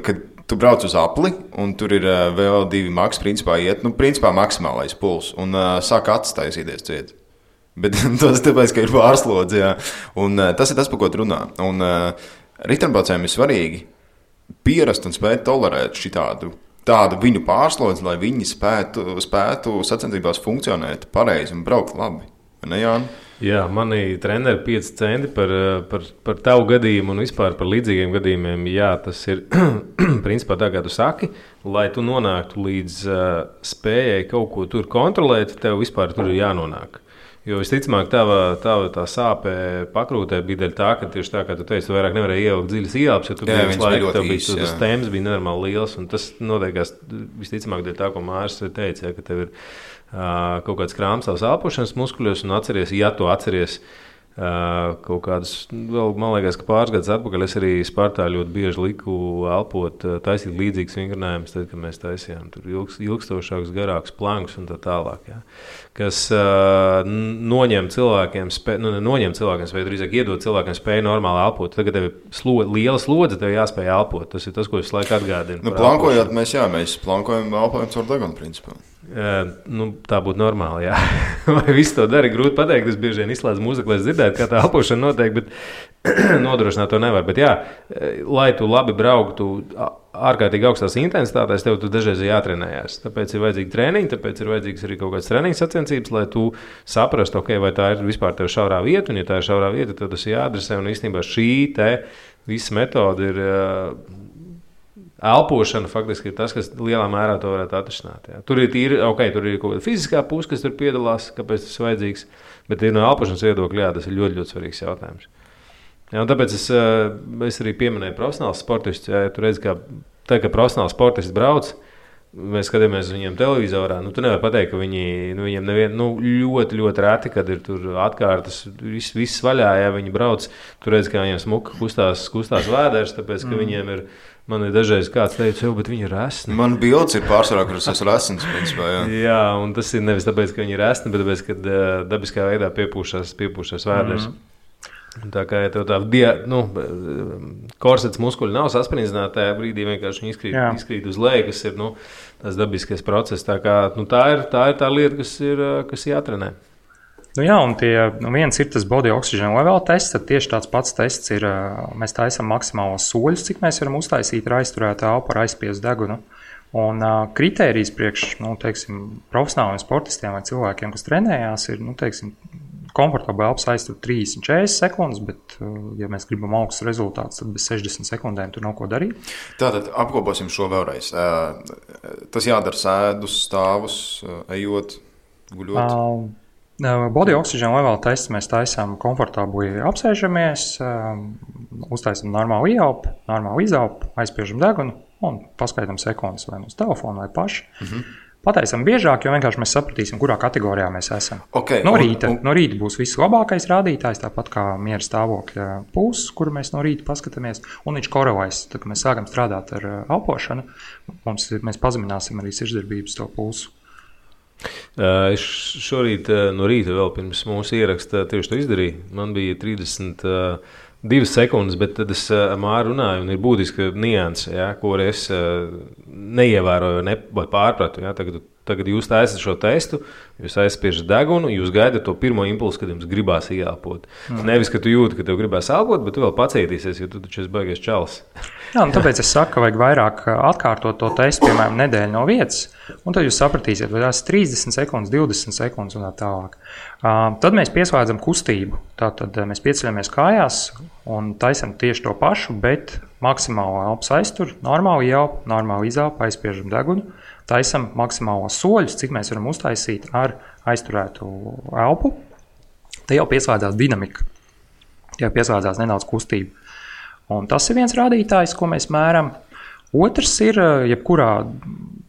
kad tu brauc uz apli, un tur ir VO2 maks, principā iet, principā maksimālais puls, un sāk atstaisīties ciet. Bet tas tāpēc, ka ir pārslodze, jā. Un tas ir tas, par ko tu runā. Un riteņbraucējiem ir svarīgi pierast un spēt tolerēt tādu viņu pārslodzi, lai viņi spētu sacensībās funkcionēt pareizi un braukt labi. Ne, Jāni? Jā, mani treneri 5 centi par tavu gadījumu un vispār par līdzīgiem gadījumiem. Jā, tas ir principā tā, kā tu saki, lai tu nonāktu līdz spējai kaut ko tur kontrolēt, tev vispār tur ir jānonāk. Jo visticamāk, tā sāpe pakrūtē bija daļa tā, ka tieši tā, kā tu teici, tu vairāk nevarēji ievilkt dziļas ieelpas, jo tu biji laiku, tev bija tas temps bija nenormāli liels, un tas noteikās visticamāk daļa tā, ko Māris teica, ja, ka tev ir kaut kāds krāms savas elpošanas muskuļos, un atceries, ja tu atceries Kaut kādas, vēl, man liekas, ka pāris gadus atpakaļ es arī Spartā ļoti bieži liku elpot, taisīt līdzīgas vingrinājumus, tad, kad mēs taisījām tur ilgstošākus, garākus plankus un tā tālāk. Ja. Kas noņem cilvēkiem spēju, drīzāk iedod cilvēkiem spēju normāli elpot. Tagad tev ir liela slodze, tev jāspēj elpot. Tas ir tas, ko es laiku atgādinu. Plankojot, mēs plankojam elpojam caur degunu principā. Tā būtu normāli, jā. Vai viss to dara, grūti pateikt. Es bieži vien izslēdzu mūziku, lai es dzirdētu, kā tā elpošana notiek, bet nodrošināt to nevar. Bet jā, lai tu labi brauktu ārkārtīgi augstās intensitātēs, tev dažreiz jātrenējās. Tāpēc ir vajadzīgi treniņi, tāpēc ir vajadzīgs arī kaut kāds treniņu sacensības, lai tu saprastu, vai tā ir vispār tev šaurā vieta, un ja tā ir šaurā vieta, tad tas jāadresē, un īstenībā šī visa metode ir elpošana faktiski ir tas, kas lielā mērā to varētu atrisināt. Jā. Tur ir kaut kāda fiziskā puse, kas tur piedalās, kāpēc tas ir vajadzīgs, bet no elpošanas viedokļa, jā, tas ir ļoti, ļoti svarīgs jautājums. Jā, tāpēc es arī pieminēju profesionāls sportistus. Ja tu redzi, ka profesionāls sportists brauc, mēs skatāmies uz viņiem televizorā, tu nevari pateikt, ka viņiem ļoti, ļoti reti, kad ir tur atkārtas, viss vaļā, ja viņi brauc, tu redzi, ka viņiem smuka kustās vēders, tāpēc, ka viņiem ir. Man ir dažreiz kāds teica, bet viņi ir resni. Man bildes ir pārsvarā, kuras esmu resns, principā, jā. Jā, un tas ir nevis tāpēc, ka viņi ir resni, bet tāpēc, ka dabiskā veidā piepūšās vēders. Tā kā ja tev korsets muskuļi nav sasprindzināti, tajā brīdī vienkārši viņi izkrīt uz leju, kas ir tas dabiskais process. Tā kā tā ir tā lieta, kas jātrenē. Un viens ir tas body oxygen level tests, tad tieši tāds pats tests ir, mēs taisam maksimālos soļus, cik mēs varam uztaisīt ar aizturētu elpu, ar aizspiestu degunu. Un kritērijs priekš, profesionāliem sportistiem vai cilvēkiem, kas trenējās, ir, komfortabli elpas aiztur 30-40 sekundes, bet, ja mēs gribam augstus rezultātus, tad bez 60 sekundēm tur nav ko darīt. Tātad apkoposim šo vēlreiz. Tas jādara sēdus, stāvus, ejot, guļot? Body oxygen level tests mēs taisām komfortabli apsēžamies, uztaisam normālu ieelpu, normālu izelpu, aizspiežam degunu un paskaidam sekundes vai uz telefonu vai paši. Pataisam biežāk, jo vienkārši mēs sapratīsim, kurā kategorijā mēs esam. Okay, no rīta būs vislabākais rādītājs, tāpat kā miera stāvokļa pulss, kuru mēs no rīta paskatāmies, un viņš korelēs. Tad, kad mēs sākam strādāt ar elpošanu, mēs pazemināsim arī sirdsdarbības to pulsu. Es šorīt no rīta vēl pirms mūsu ieraksta tieši to izdarīju. Man bija 32 sekundes, bet tad es Māru runāju, un ir būtiska nianse, ko es neievēroju vai pārpratu. Ja? Tagad jūs taisat šo testu, jūs aizspiežat degunu, jūs gaidat to pirmo impulsu, kad jums gribās ieelpot. Nevis, ka tu jūti, ka tev gribās elpot, bet tu vēl pacietīsies, jo tu taču esi baigies čalis. Jā, tāpēc es saku, ka vajag vairāk atkārtot to testu, piemēram, nedēļu no vietas, un tad jūs sapratīsiet, vai tās 30 sekundes, 20 sekundes un tā tālāk. Tad mēs pieslēdzam kustību. Tātad mēs pieceļamies kājās un taisam tieši to pašu, bet maksimālo elpas aiztur, normāli ieelpu, normāli izelpu, aizspiežam degunu, taisam maksimālos soļus, cik mēs varam uztaisīt ar aizturētu elpu. Te jau pieslēdzās dinamika, jau pieslēdzās nedaudz kustība. Un tas ir viens rādītājs, ko mēs mēram. Otrs ir, jebkurā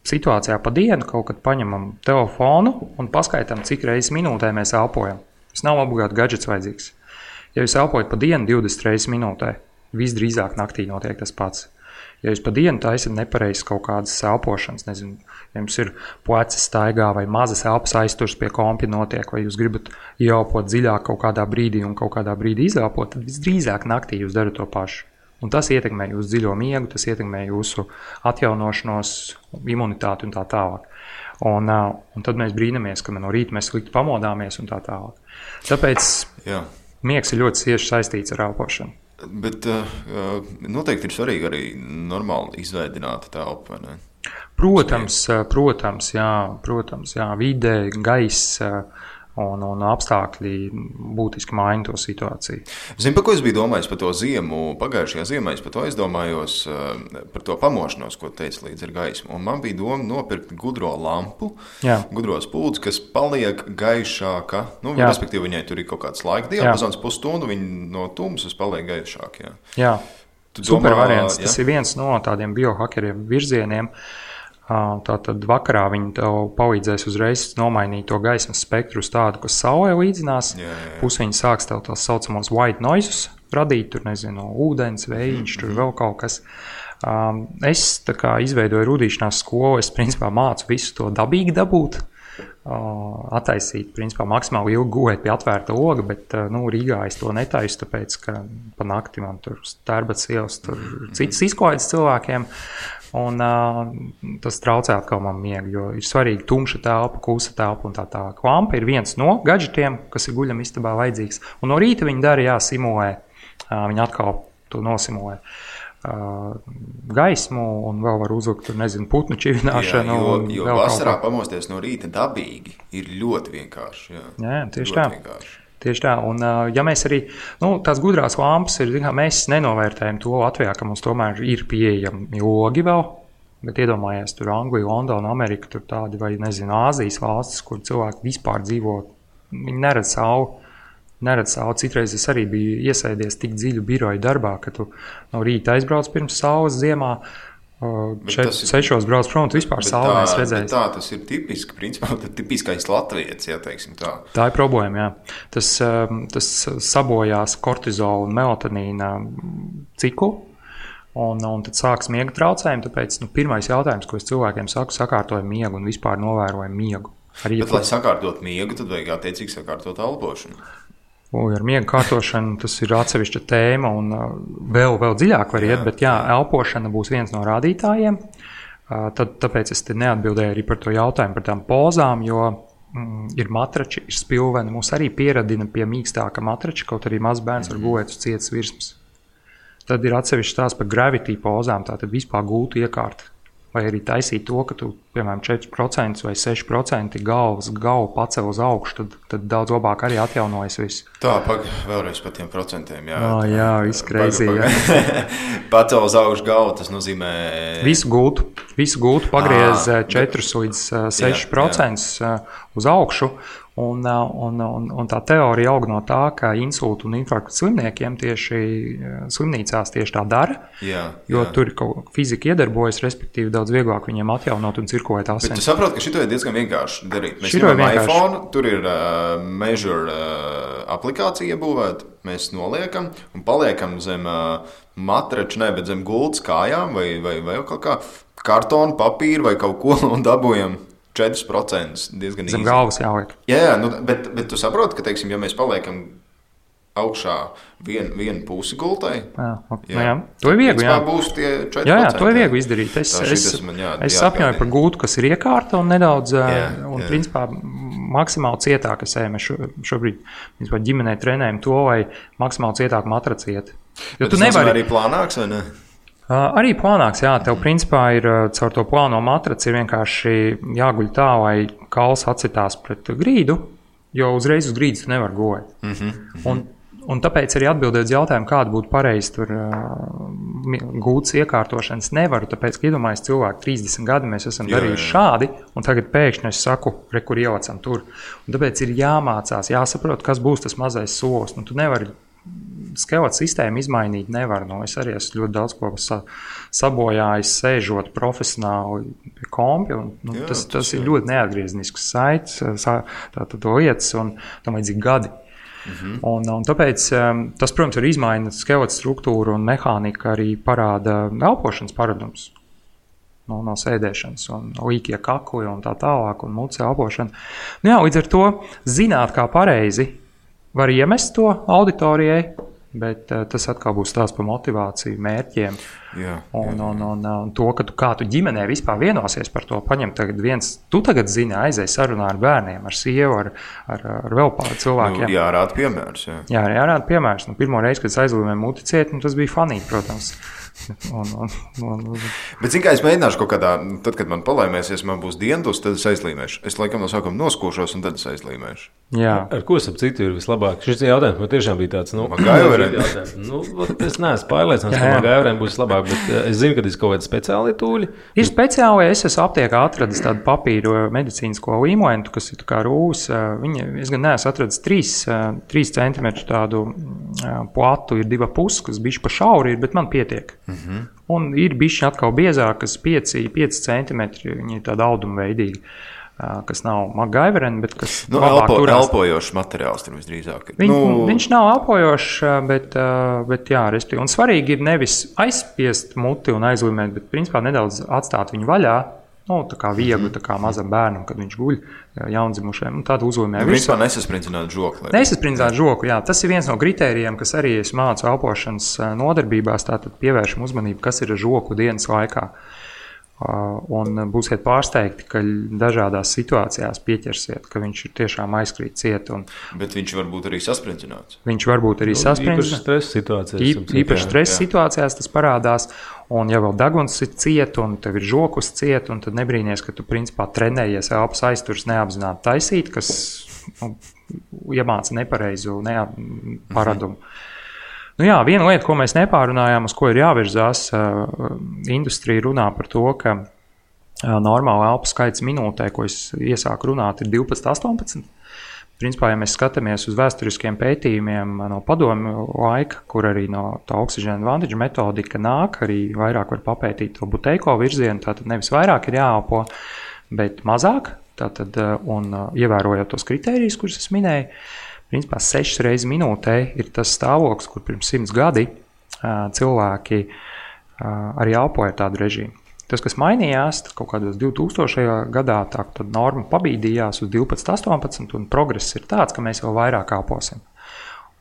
situācijā pa dienu kaut kad paņemam telefonu un paskaitām, cik reizes minūtē mēs elpojam. Tas nav obligāti gadžets vajadzīgs. Ja jūs elpojat pa dienu 20 reizes minūtē, visdrīzāk naktī notiek tas pats. Ja jūs pa dienu taisat nepareizas kaut kādas elpošanas, nezinu, ja jums ir pleces staigā vai mazas elpas aizturs pie kompja notiek, vai jūs gribat ieelpot dziļāk kaut kādā brīdī un kaut kādā brīdī izelpot, tad visdrīzāk naktī jūs darat to pašu. Un tas ietekmē jūsu dziļo miegu, tas ietekmē jūsu atjaunošanos, imunitāti un tā tālāk. Un tad mēs brīnamies, ka no rīta mēs slikti pamodāmies un tā tālāk. Tāpēc miegs ir ļoti cieši saistīts ar elpošanu. Bet noteikti ir svarīgi arī normāli izveidināta telpa, vai ne? Protams, jā, vide, gaiss un apstākļi būtiski maina to situāciju. Zini, par ko es biju domājis par to ziemu? Pagājušajā ziemā es par to aizdomājos, par to pamošanos, ko teica līdz ar gaismu. Un man bija doma nopirkt gudro lampu, gudro spuldzes, kas paliek gaišāka. Respektīvi, viņai tur ir kaut kāds laika diapazons, pusstundu, viņa no tumsas paliek gaišāk. Jā. Super variants. Tas ir viens no tādiem biohakeriem virzieniem. Tātad vakarā viņi tev palīdzēs uzreiz nomainīt to gaismas spektru uz tādu, kas saulē līdzinās. Pus viņi sāks tev tās saucamos white noises radīt, tur nezinu, ūdens, vējiņš, tur vēl kaut kas. Es tā kā izveidoju rudīšanās skolu, es principā mācu visu to dabīgi dabūt, attaisīt, principā maksimāli ilgi gulēt pie atvērta loga, bet Rīgā es to netaisu, tāpēc, ka pa nakti man tur Stērbats ielas, tur citas izklaides cilvēkiem, un tas traucē atkal man miegu, jo ir svarīgi tumša telpa, klusa telpa un tā. Lampa ir viens no gadžetiem, kas ir guļam istabā vajadzīgs, un no rīta viņi dara, simulē, viņi atkal to nosimulē. Gaismu un vēl var uzlikt, tur nezinu, putnu čivināšanu. Jo vasarā pamosties no rīta dabīgi ir ļoti vienkārši. Jā, tieši tā. Tieši tā, un ja mēs arī, tās gudrās lampas ir, mēs nenovērtējam to Latvijā, ka mums tomēr ir pieejami logi vēl, bet iedomājies tur Anglija, Londona, Amerika, tur tādi vai, nezinu, Āzijas valstis, kur cilvēki vispār dzīvo, viņi neredz sauli. Citreiz es arī biju iesēdies tik dziļu biroju darbā, ka tu no rīta aizbrauc pirms saules ziemā, 6 brauc prom, tu vispār saulē esi redzējis. Tā tas ir tipiski, principā, tipiskais latvietis, ja teiksim tā. Tā ir problēma, jā. Tas sabojās kortizolu un melatonīna ciklu, un tad sāks miega traucējumi, tāpēc pirmais jautājums, ko es cilvēkiem saku, sakārtojam miegu un vispār novērojam miegu. Bet, lai sakārtot miegu, tad vajag attiecīgi sakārtot elpošanu. Ar miega kārtošanu tas ir atsevišķa tēma un vēl dziļāk var iet, bet elpošana būs viens no rādītājiem. Tāpēc es te neatbildēju arī par to jautājumu par tām pozām, jo ir matrači, ir spilveni. Mūs arī pieradina pie mīkstāka matrača, kaut arī mazs bērns var gulēt uz cietas virsmas. Tad ir atsevišķi tās par gravity pozām, tātad vispār gultu iekārta. Vai arī taisīt to, ka tu, piemēram, 4% vai 6% galvu pacel uz augšu, tad daudz labāk arī atjaunojas viss. Tā, vēlreiz par tiem procentiem, jā. Jā, viss crazy, jā. Pacel uz augšu galvu, tas nozīmē... Visu gultu pagriez 4 līdz 6% uz augšu. Un tā teorija aug no tā, ka insultu un infarktu slimniekiem tieši slimnīcās tieši tā dara, jo tur fizika iedarbojas, respektīvi daudz vieglāk viņiem atjaunot un cirkulēt asins. Bet tu saproti, ka šito ir diezgan vienkārši darīt. Mēs ņemam iPhone, tur ir Measure aplikācija iebūvēta, mēs noliekam un paliekam zem matrača, bet zem gultas kājām vai kaut kā kartonu, papīru vai kaut ko un dabūjam 4% diezgan īsi. Zem galvas jāliek. Jā, bet tu saproti, ka, teiksim, ja mēs paliekam augšā vienu pusi gultai, jā. To ir viegli, jā. Būs tie 4%. Jā, to ir viegli izdarīt. Es sapņoju par gultu, kas ir iekārta un nedaudz, principā maksimāli cietāk es ejam. Šobrīd ģimenē trenējam to, lai maksimāli cietāk matraci iet. Jo tu nevari arī plānāks, vai ne? Arī plānāks, jā. Tev principā ir caur to plāno matraci ir vienkārši jāguļ tā, lai kauls atsitās pret grīdu, jo uzreiz uz grīdas tu nevar gulēt. Un tāpēc arī atbildēt uz jautājumu, kāda būtu pareizi tur gultas iekārtošanas nevaru, tāpēc, ka iedomājas cilvēki 30 gadi mēs esam darījuši šādi, un tagad pēkšņi es saku, kur ielacam tur. Un tāpēc ir jāmācās, jāsaprot, kas būs tas mazais solis. Tu nevari skeleta sistēmu izmainīt nevar. Es arī esmu ļoti daudz ko sabojājis, sēžot profesionāli pie kompja. Tas ir ļoti neatgriezenisks saites, to lietas, un tam vajadzīgi gadi. Un tāpēc tas, protams, ir izmaina skeleta struktūru un mehānika arī parāda elpošanas paradums. No sēdēšanas un līkie kakli un tā tālāk un mucu elpošana. Līdz ar to zināt, kā pareizi var iemest to auditorijai, bet tas atkal būs tās par motivāciju, mērķiem. Un to, ka kā tu ģimenē vispār vienosies par to, paņem tagad tu tagad zini, aizēj sarunā ar bērniem, ar sievu, ar vēl pār cilvēkiem. Jārāda piemērs, jā. Jārāda piemērs. Pirmo reizi, kad es aizlūmēju muticēt, tas bija fanīgi, protams. Bet zini, kā es mēģināšu kaut kādā, tad, kad man palaimēsies, man būs dientus, tad es aizlīmēšu. Es laikam no sākuma noskūšos un tad es aizlīmēšu. Jā. Ar ko ap citu ir vislabāk? Šis jautājums man tiešām bija tāds, Magaivarēm. Es neesmu pārliecināts, ka Magaivarēm būs labāk, bet es zinu, ka ir kaut kādi speciāli tūļi. Ir speciāli, es esmu aptiekā atradis tādu papīru medicīnisko līmoentu, kas ir tā kā rūs. Es gan neesmu atradis 3 centimetru tādu platu, ir 2,5, kas bišķi pa šauri ir, bet man pietiek. Un ir bišķi atkal biezāk, kas 5 centimetri, viņi ir tāda auduma veidīgi, kas nav MacGyvereni, bet kas labāk turās. Elpojošs materiāls tur visdrīzāk. Viņš nav elpojošs, bet jā, respektīvi. Un svarīgi ir nevis aizspiest muti un aizlimēt, bet principā nedaudz atstāt viņu vaļā, tā kā viegli, tā kā mazam bērnam, kad viņš guļ jaundzimušajam, un tādu uzlimē. Principā nesaspringzināt žokli. Nesaspringzināt žokli, jā. Tas ir viens no kritērijiem, kas arī es mācu elpošanas nodarbībās, tātad pievēršam uzmanību, kas ir ar žokli dienas laikā. Un būsiet pārsteigti, ka dažādās situācijās pieķersiet, ka viņš ir tiešām aizkrīt ciet. Bet viņš var būt arī sasprindzināts. Viņš var būt arī sasprindzināts. Īpaši stresa situācijās. Īpaši stresa situācijās tas parādās. Un ja vēl deguns ir ciet un tev ir žoklis ciet, un tad nebrīnies, ka tu principā trenējies elpas aizturs neapzināti taisīt, kas iemāca nepareizu paradumu. Jā, viena lieta, ko mēs nepārunājām, uz ko ir jāvirzās, industrija runā par to, ka normāla elpu skaits minūtē, ko es iesāku runāt, ir 12-18. Principā, ja mēs skatāmies uz vēsturiskiem pētījumiem no padomju laika, kur arī no tā oxygen advantage metodika nāk, arī vairāk var papētīt to buteiko virzienu, tātad nevis vairāk ir jāelpo, bet mazāk, tātad, un ievērojot tos kritērijus, kurus es minēju, principā 6 reizes minūtē ir tas stāvoklis, kur pirms 100 gadi cilvēki arī elpoja tādu režīmu. Tas, kas mainījās, tad kaut kādos 2000. gadā tad norma pabīdījās uz 12-18, un progress ir tāds, ka mēs vēl vairāk elposim.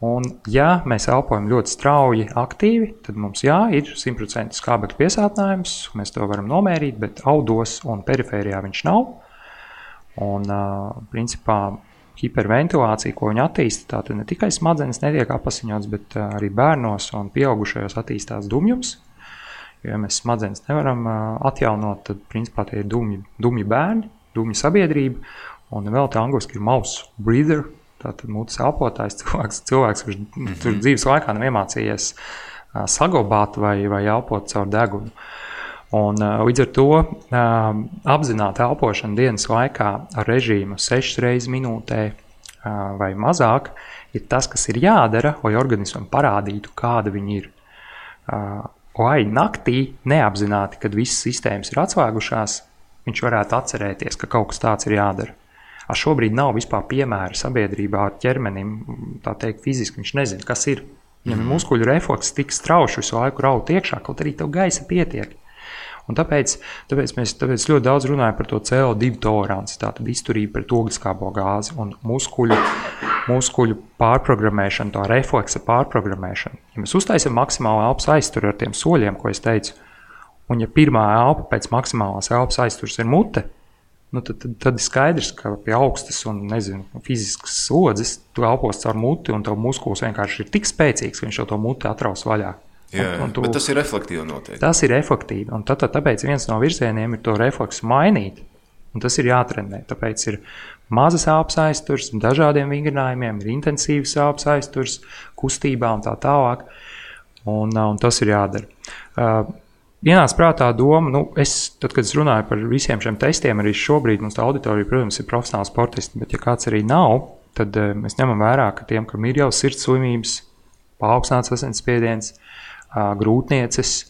Un ja mēs elpojam ļoti strauji, aktīvi, tad mums ir 100% skābekļa piesātinājums, mēs to varam nomērīt, bet audos un perifērijā viņš nav. Un principā hiperventilācija, ko viņi attīsta, tātad ne tikai smadzenes netiek apasiņots, bet arī bērnos un pieaugušajos attīstās dumjums. Jo, ja mēs smadzenes nevaram atjaunot, tad principā tie ir dumji bērni, dumji sabiedrība, un vēl te angliski ir mouse breather, tātad mutes elpotājs cilvēks, kurš tur dzīves laikā nav iemācījies saglabāt vai elpot caur degunu. Un līdz ar to apzināta elpošana dienas laikā ar režīmu 6 reizes minūtē vai mazāk ir tas, kas ir jādara, lai organismam parādītu, kāda viņi ir. Lai naktī neapzināti, kad visas sistēmas ir atslēgušās, viņš varētu atcerēties, ka kaut kas tāds ir jādara. Šobrīd nav vispār piemēra sabiedrībā ar ķermenim, tā teikt, fiziski viņš nezina, kas ir. Viņam ir muskuļu refleks tik strauši visu laiku raut iekšā, kaut arī tev gaisa pietiek. Un tāpēc ļoti daudz runāju par to CO2 toleranci, tātad izturību pret ogliskābo gāzi un muskuļu pārprogrammēšanu, tā refleksa pārprogrammēšanu. Ja mēs uztaisam maksimālu elpas aizturu ar tiem soļiem, ko es teicu, un ja pirmā elpa pēc maksimālās elpas aizturas ir mute, tad ir skaidrs, ka pie augstas un, fiziskas slodzes tu elpos caur muti un tev muskuls vienkārši ir tik spēcīgs, ka viņš to muti atraus vaļā. Bet tas ir reflektīvi noteikti. Tas ir efektīvi, un tāpēc viens no virzieniem ir to refleksu mainīt, un tas ir jātrenē. Tāpēc ir mazas elpas aizturs, dažādiem vingrinājumiem, ir intensīvas elpas aizturs, kustībā un tā tālāk, un tas ir jādara. Ienāca prātā doma, tad, kad es runāju par visiem šiem testiem, arī šobrīd mums tā auditorija, protams, ir profesionāli sportisti, bet ja kāds arī nav, tad mēs ņemam vērā, ka tiem, kam ir jau sirds slimības, paaugstināts asinsspiediens, grūtnieces,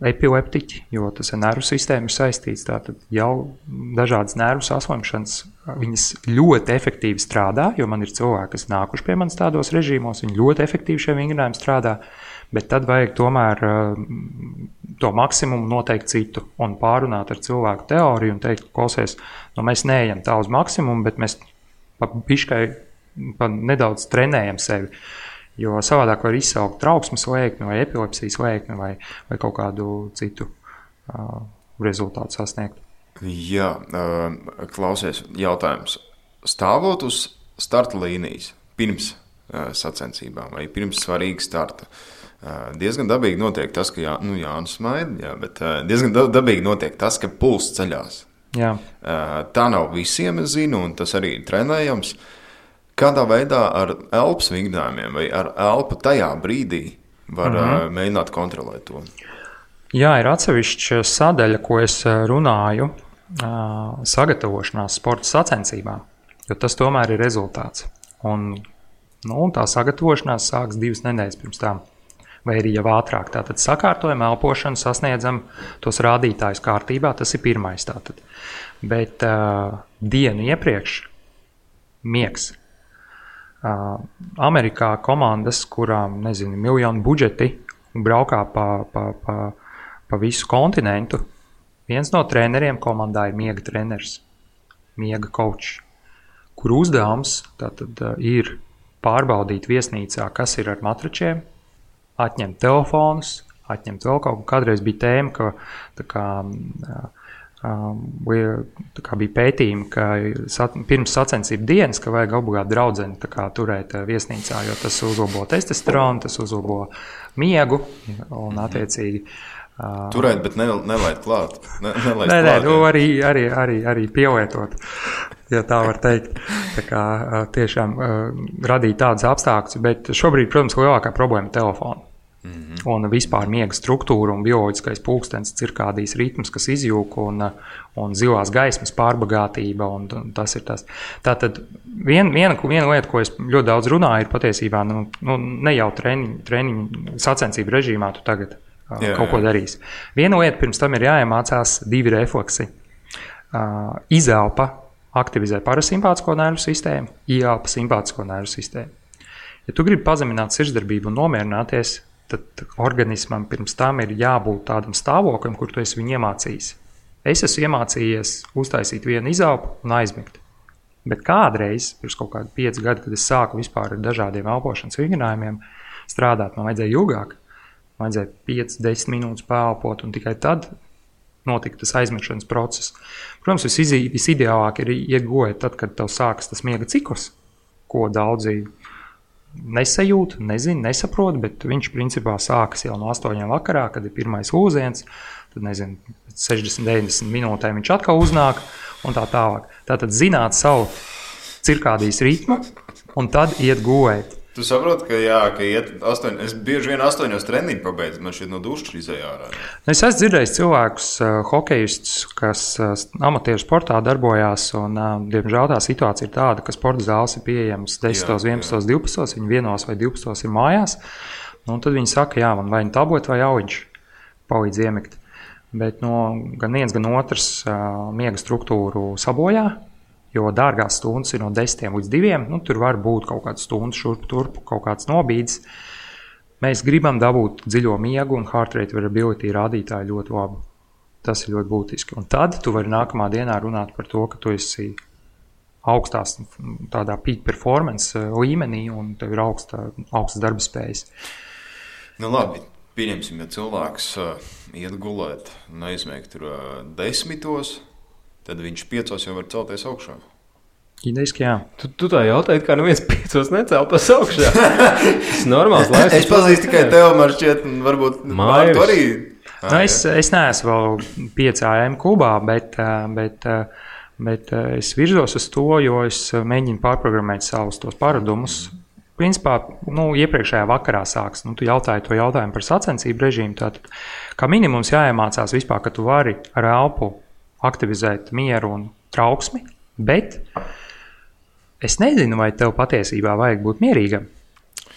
epileptiķi, jo tas ar nervu sistēmu ir saistīts, tātad jau dažādas nervu saslimšanas, viņas ļoti efektīvi strādā, jo man ir cilvēki, kas nākuši pie manis tādos režīmos, viņi ļoti efektīvi šie vingrinājumi strādā, bet tad vajag tomēr to maksimumu noteikt citu un pārunāt ar cilvēku teoriju un teikt, klausies, mēs neejam tā uz maksimumu, bet mēs nedaudz trenējam sevi. Jo savādāk var izsaukt trauksmes lēkmi vai epilepsijas lēkmi vai kaut kādu citu rezultātu sasniegt. Jā, klausies, jautājums. Stāvot uz starta līnijas pirms sacensībām vai pirms svarīga starta, diezgan dabīgi notiek tas, ka Jānis smaida, bet diezgan dabīgi notiek tas, ka pulss ceļās. Jā. Tā nav visiem, es zinu, un tas arī ir trenējams. Kādā veidā ar elpas vingrinājumiem vai ar elpu tajā brīdī var mēģināt kontrolēt to? Jā, ir atsevišķa sadaļa, ko es runāju sagatavošanās sporta sacensībām, jo tas tomēr ir rezultāts. Un tā sagatavošanās sāks 2 nedēļas pirms tām. vai arī jau ātrāk. Tātad sakārtojam elpošanu, sasniedzam tos rādītājus kārtībā, tas ir pirmais. Tātad. Bet dienu iepriekš miegs. Amerikā komandas, kurām, nezinu, miljonu budžeti braukā pa visu kontinentu, viens no treneriem komandā ir miega treneris, miega coach, kur uzdevums tātad ir pārbaudīt viesnīcā, kas ir ar matračiem, atņemt telefonus, atņemt vēl kaut ko. Kādreiz bija tēma, ka tā kā bija pētījumi, ka pirms sacensību dienas, ka vajag obligāti draudzeni turēt viesnīcā, jo tas uzlabo testosteronu, tas uzlabo miegu un attiecīgi. Turēt, bet nelaid klāt. Nē, arī pielietot, ja tā var teikt. Tā kā tiešām radīt tādas apstākļus, bet šobrīd, protams, lielākā problēma ir telefona. Un vispār miega struktūra un bioloģiskais pulkstenis, cirkādijas ritms, kas izjūk un zilās gaismas pārbagātība, un tas ir tas. Tātad viena lieta, ko es ļoti daudz runāju, ir patiesībā ne jau treniņu sacensību režīmā tu tagad kaut ko darīsi. Viena lieta pirms tam ir jāiemācās 2 refleksi. Izelpa aktivizē parasimpātisko nervu sistēmu, ieelpa simpātisko nervu sistēmu. Ja tu gribi pazemināt sirdsdarbību un nomierināties, tad organismam pirms tam ir jābūt tādam stāvoklim, kur tu esi viņu iemācījis. Es esmu iemācījies uztaisīt vienu izelpu un aizmigt. Bet kādreiz, pirms kaut kādu 5 gadu, kad es sāku vispār ar dažādiem elpošanas vingrinājumiem strādāt, man vajadzēja ilgāk. Man vajadzēja 5-10 minūtes pēlpot, un tikai tad notika tas aizmigšanas process. Protams, visideālāk ir iegūt tad, kad tev sākas tas miega cikls, ko daudzi nesajūt, nezinu, nesaprot, bet viņš principā sākas jau no 8 vakarā, kad ir pirmais lūziens, tad, nezinu, pēc 60-90 minūtēm viņš atkal uznāk un tā tālāk. Tātad zināt savu cirkādijas ritmu un tad iet gulēt. Tu saproti, ka iet 8, es bieži vien 8 treniņu pabeidzu, man šeit no dušas izēja ārā. Es esmu dzirdējis cilvēkus, hokejistus, kas amatieru sportā darbojās, un diemžēl tā situācija ir tāda, ka sporta zāles ir pieejams 10, 11, 12, viņi 1 vai 12 ir mājās, un tad viņi saka, jā, man vai nu tableti vai auļiņš palīdz iemigt. Bet gan viens, gan otrs miega struktūru sabojā, jo dārgās stundas ir no 10 līdz 2, tur var būt kaut kāds stundas šurp turpu, kaut kāds nobīdes. Mēs gribam dabūt dziļo miegu, un heart rate variability rādītāji ļoti labi. Tas ir ļoti būtiski. Un tad tu vari nākamā dienā runāt par to, ka tu esi augstās tādā peak performance līmenī, un tev ir augstas darba spējas. Nu labi, pieņemsim, ja cilvēks iet gulēt un aizmēgt tur 10, tad viņš 5 jau var celties augšā. Idejiski, jā. Tu tā jautāji, kā neviens 5 neceltos augšā. Tas normāls laiks. Es pazīstu tikai tev, man šķiet, un varbūt Mārtu arī. Es neesmu vēl 5 AM klubā, bet es virzos uz to, jo es mēģinu pārprogrammēt savus tos paradumus. Principā, iepriekšējā vakarā sāks. Tu jautāji to jautājumu par sacensību režīmu. Tātad, kā minimums jāiemācās vispār, ka tu vari ar elpu aktivizēt mieru un trauksmi, bet es nezinu, vai tev patiesībā vajag būt mierīgam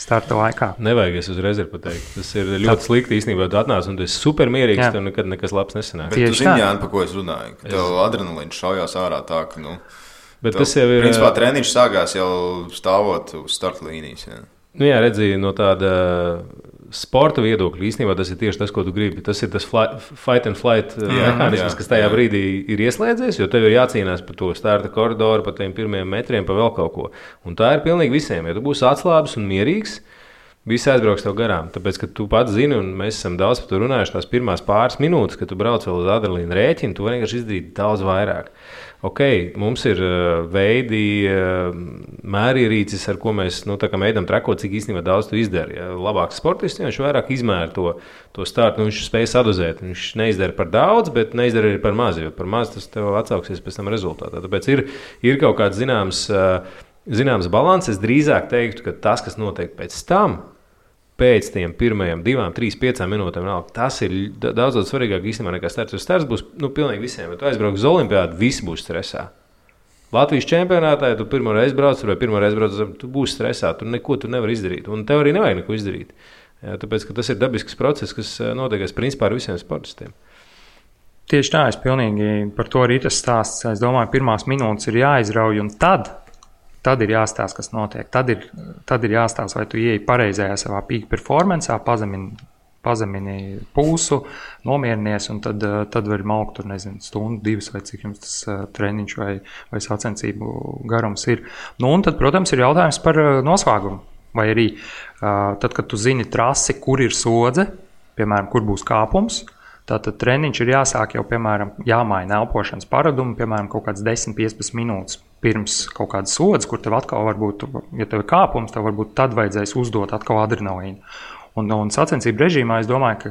starta laikā. Nevajag, es uzreiz ir pateikt. Tas ir ļoti slikti īstenībā, tu atnāc un tu esi super mierīgs, tev nekad nekas labs nesanāk. Bet tu zini, Jāni, pa ko es runāju, ka tev adrenalīns šaujās ārā tā, ka, bet tas jau ir... Principā treniņš sākās jau stāvot uz starta līnijas, jā. Jā, redzīju, no tāda sporta viedokļa īstenībā tas ir tieši tas, ko tu gribi. Tas ir tas fight and flight mehānisms, kas tajā brīdī ir ieslēdzies, jo tev ir jācīnās par to starta koridoru, par tiem pirmiem metriem, par vēl kaut ko. Un tā ir pilnīgi visiem. Ja tu būsi atslābis un mierīgs, visi aizbrauks tev garām. Tāpēc, ka tu pats zini, un mēs esam daudz par to runājuši, tās pirmās pāris minūtes, kad tu brauc vēl uz adrenalīna rēķinu, tu vari vienkārši izdarīt daudz vairāk. Ok, mums ir veidi, mērierīces, ar ko mēs mēģinām trakot, cik īstenībā daudz tu izdari. Ja labāks sportists, viņš vairāk izmēra to startu, viņš spēj sadozēt. Viņš neizdara par daudz, bet neizdara arī par maz, jo par maz tas tev atsauksies pēc tam rezultātā. Tāpēc ir kaut kāds zināms balans. Es drīzāk teiktu, ka tas, kas notiek pēc tam, pēc tiem pirmajiem 2, 3, 5 minūtēm, tas ir daudz svarīgāk īstenībā nekā starts. Starts būs pilnīgi visiem. Ja tu aizbrauc uz olimpiādu, visi būs stresā. Latvijas čempionātā, ja tu pirmo reizi brauc, tu būsi stresā, tu neko tu nevari izdarīt. Un tev arī nevajag neko izdarīt. Jā, tāpēc, ka tas ir dabisks process, kas notiekās principā ar visiem sportistiem. Tieši tā, es pilnīgi par to arī tas stāsts. Es domāju, pirmās minūtes ir jāizrauj, un tad ir jāstāsta, kas notiek. Tad ir jāstāsta, vai tu ieeji pareizajā savā peak performanceā, pazemini pulsu, nomierinies, un tad var malkt tur, nezinu, stundu, 2 vai cik jums tas treniņš vai sacensību garums ir. Nu, un tad, protams, ir jautājums par noslēgumu. Vai arī tad, kad tu zini trasi, kur ir sodze, piemēram, kur būs kāpums, tātad treniņš ir jāsāk jau, piemēram, jāmaina elpošanas paradumu, piemēram, kaut kāds 10-15 minūtes pirms kaut kādas sodas, kur tev atkal varbūt, ja tev ir kāpums, tev varbūt tad vajadzēs uzdot atkal adrenalīnu. Un sacensību režīmā es domāju, ka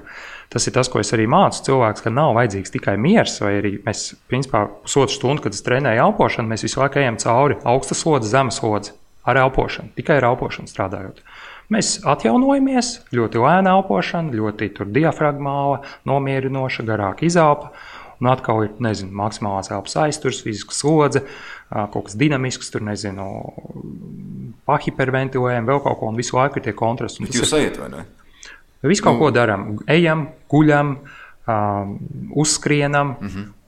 tas ir tas, ko es arī mācu cilvēks, ka nav vajadzīgs tikai miers, vai arī mēs, principā, pusotru stundu, kad es trenēju elpošanu, mēs visu laiku ejam cauri augsta slodze, zema slodze ar elpošanu, tikai ar elpošanu strādājot. Mēs atjaunojamies, ļoti lēna elpošana, ļoti diafragmāla, nomierinoša, garāka izelpa, un atkal ir, nezinu, maksimālās elpas aizturs, fiziska slodze, kaut kas dinamisks, tur, nezinu, pahiperventilējam, vēl kaut ko, un visu laiku ir tie kontrasti. Bet jūs ejat, vai ne? Visu kaut ko darām. Ejam, guļam, uzskrienam,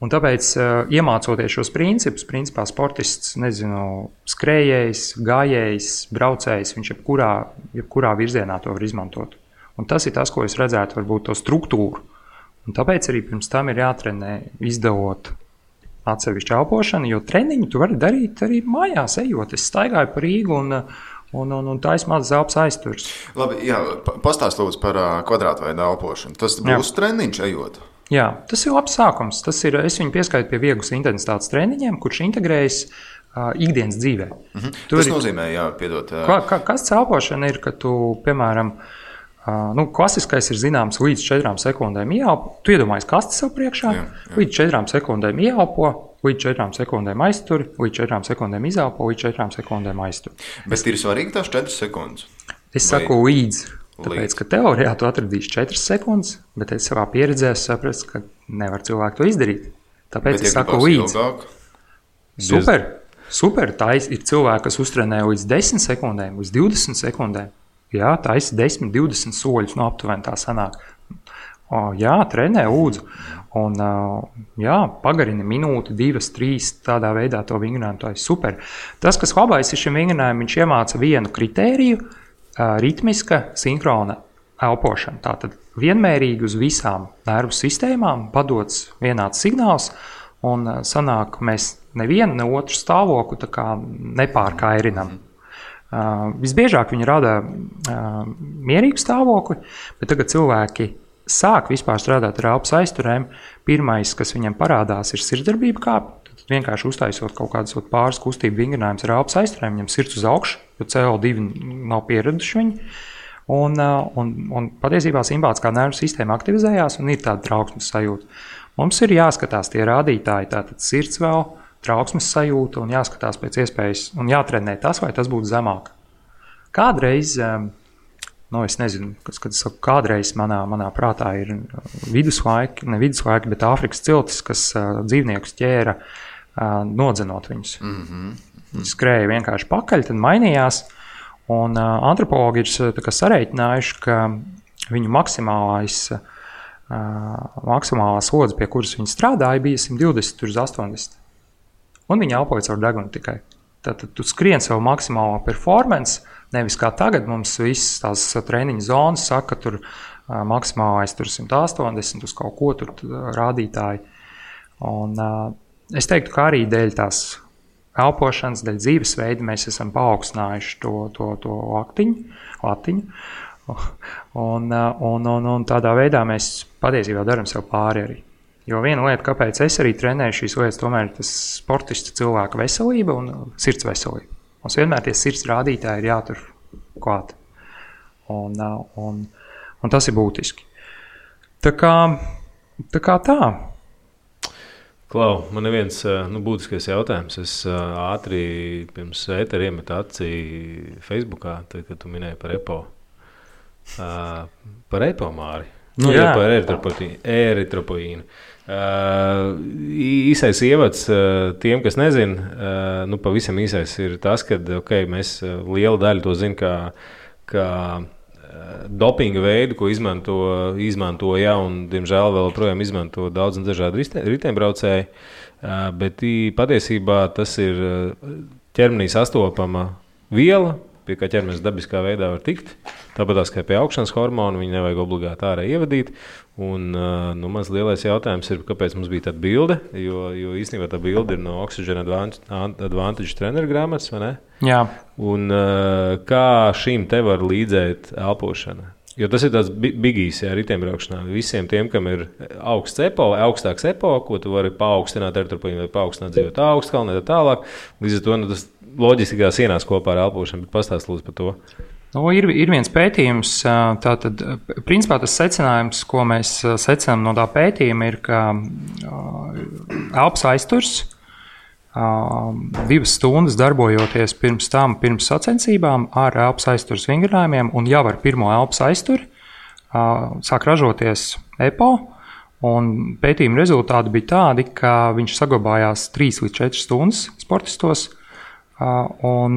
un tāpēc iemācoties šos principus, principā sportists, nezinu, skrējējs, gājējs, braucējs, viņš jebkurā virzienā to var izmantot. Un tas ir tas, ko es redzētu, varbūt to struktūru. Un tāpēc arī pirms tam ir jātrenē, izdevot atsevišķu elpošanu, jo treniņu tu vari darīt arī mājās ejot. Es staigāju pa Rīgu un tā ir mazas elpas aizturs. Labi, jā, pastāst lūdzu par kvadrātveida elpošanu. Tas būs treniņš ejot? Jā, tas ir labs sākums. Es viņu pieskaitu pie vieglas intensitātes treniņiem, kurš integrējas ikdienas dzīvē. Tas nozīmē, jā, piedot. Kas elpošana ir, ka tu, piemēram, klasiskais ir zināms līdz 4 sekundēm ieelpo. Tu iedomājies kasti sev priekšā, līdz 4 sekundēm ieelpo, līdz 4 sekundēm aizturi, līdz 4 sekundēm izelpo, līdz 4 sekundēm aizturi. Bet ir svarīgi tās 4 sekundes? Es saku līdz, tāpēc, ka teorijā tu atradīsi 4 sekundes, bet es savā pieredzē saprastu, ka nevar cilvēku to izdarīt. Tāpēc es saku līdz. Super, tā ir cilvēki, kas uztrenē līdz 10 sekundēm, līdz 20 sekundēm. Jā, tā ir 10, 20 soļus no aptuveni tā sanāk. Jā, trenē, lūdzu. Un, jā, pagarini minūti, 2, 3, tādā veidā to vingrinājumu, tā ir super. Tas, kas labais ir šim vingrinājumam, viņš iemāca vienu kritēriju, ritmiska, sinhrona elpošana. Tātad vienmērīgi uz visām nervu sistēmām padots vienāds signāls, un sanāk, mēs nevienu, ne otru stāvokli tā kā nepārkairinam. Visbiežāk viņi rada mierīgu stāvokli, bet tagad cilvēki sāk vispār strādāt ar elpas aizturēm. Pirmais, kas viņam parādās, ir sirdsdarbība kāpja. Tad vienkārši uztaisot kaut kādas pāris kustību vingrinājumus ar elpas aizturēm, viņam sirds uz augšu, jo CO2 nav pieraduši viņi. Un patiesībā simbātiskā nervu sistēma aktivizējās un ir tāda trauksmes sajūta. Mums ir jāskatās tie rādītāji, tātad sirds vēl, trauksmes sajūta un jāskatās pēc iespējas un jātrenē tas, vai tas būtu zemāk. Kādreiz, es nezinu, kad es saku kādreiz manā prātā ir viduslaiki, ne viduslaiki, bet Āfrikas ciltis, kas dzīvniekus ķēra nodzenot viņus. Viņi skrēja vienkārši pakaļ, tad mainījās, un antropologi ir sareiķinājuši, ka viņu maksimālā slodze, pie kuras viņi strādāja, bija 120 uz 80. Un viņi elpoja caur degunu tikai. Tātad tu skrien savu maksimālo performance, nevis kā tagad mums visas tās treniņa zonas saka, ka tur maksimālais tur 180 uz kaut ko tur rādītāji. Un es teiktu, ka arī dēļ tās elpošanas, dēļ dzīvesveida mēs esam paaugstinājuši to latiņu. Un tādā veidā mēs patiesībā darām sev pāri arī. Jo viena lieta, kāpēc es arī trenēju šīs lietas, tomēr ir tas sportista cilvēka veselība un sirds veselība. Mums vienmēr tie sirds rādītāji ir jātur klāt. Un tas ir būtiski. Tā kā tā. Klau, man ir viens būtiskais jautājums. Es ātri pirms ētera iemetu acī Facebookā, tad, kad tu minēji par EPO. Par EPO, Māri. Par eritropoīnu. Īsais ievads tiem, kas nezina, pavisam īsais ir tas, ka mēs liela daļa to zina kā dopinga veidu, ko izmantoja un, diemžēl, vēl projām izmanto daudz un dažādi riteņbraucēji. Bet patiesībā tas ir ķermenī sastopama viela, pie kā ķermenis dabiskā veidā var tikt. Tāpat kā pie augšanas hormonu, viņi nevajag obligāti ārā ievadīt. Un, mans lielais jautājums ir, kāpēc mums bija tāda bilde, jo īstenībā tā bilde ir no Oxygen Advantage treneru grāmatas, vai ne? Jā. Un kā šīm te var līdzēt elpošana? Jo tas ir tāds bigijs, riteņbraukšanā. Visiem tiem, kam ir augsts EPO vai augstāks EPO, ko tu vari paaugstināt eritropoīnu vai paaugstināt dzīvot augstkalnē, tā tālāk. Līdz ar to tas loģiski ienās kopā ar elpošanu, bet pastāst lūdzu par to. Ir viens pētījums, tātad, principā tas secinājums, ko mēs secinām no tā pētījuma, ir, ka elpas aizturs 2 stundas darbojoties pirms sacensībām ar elpas aizturs vingrinājumiem, un jau ar pirmo elpas aizturi sāk ražoties EPO, un pētījuma rezultāti bija tādi, ka viņš saglabājās 3 līdz 4 stundas sportistos, un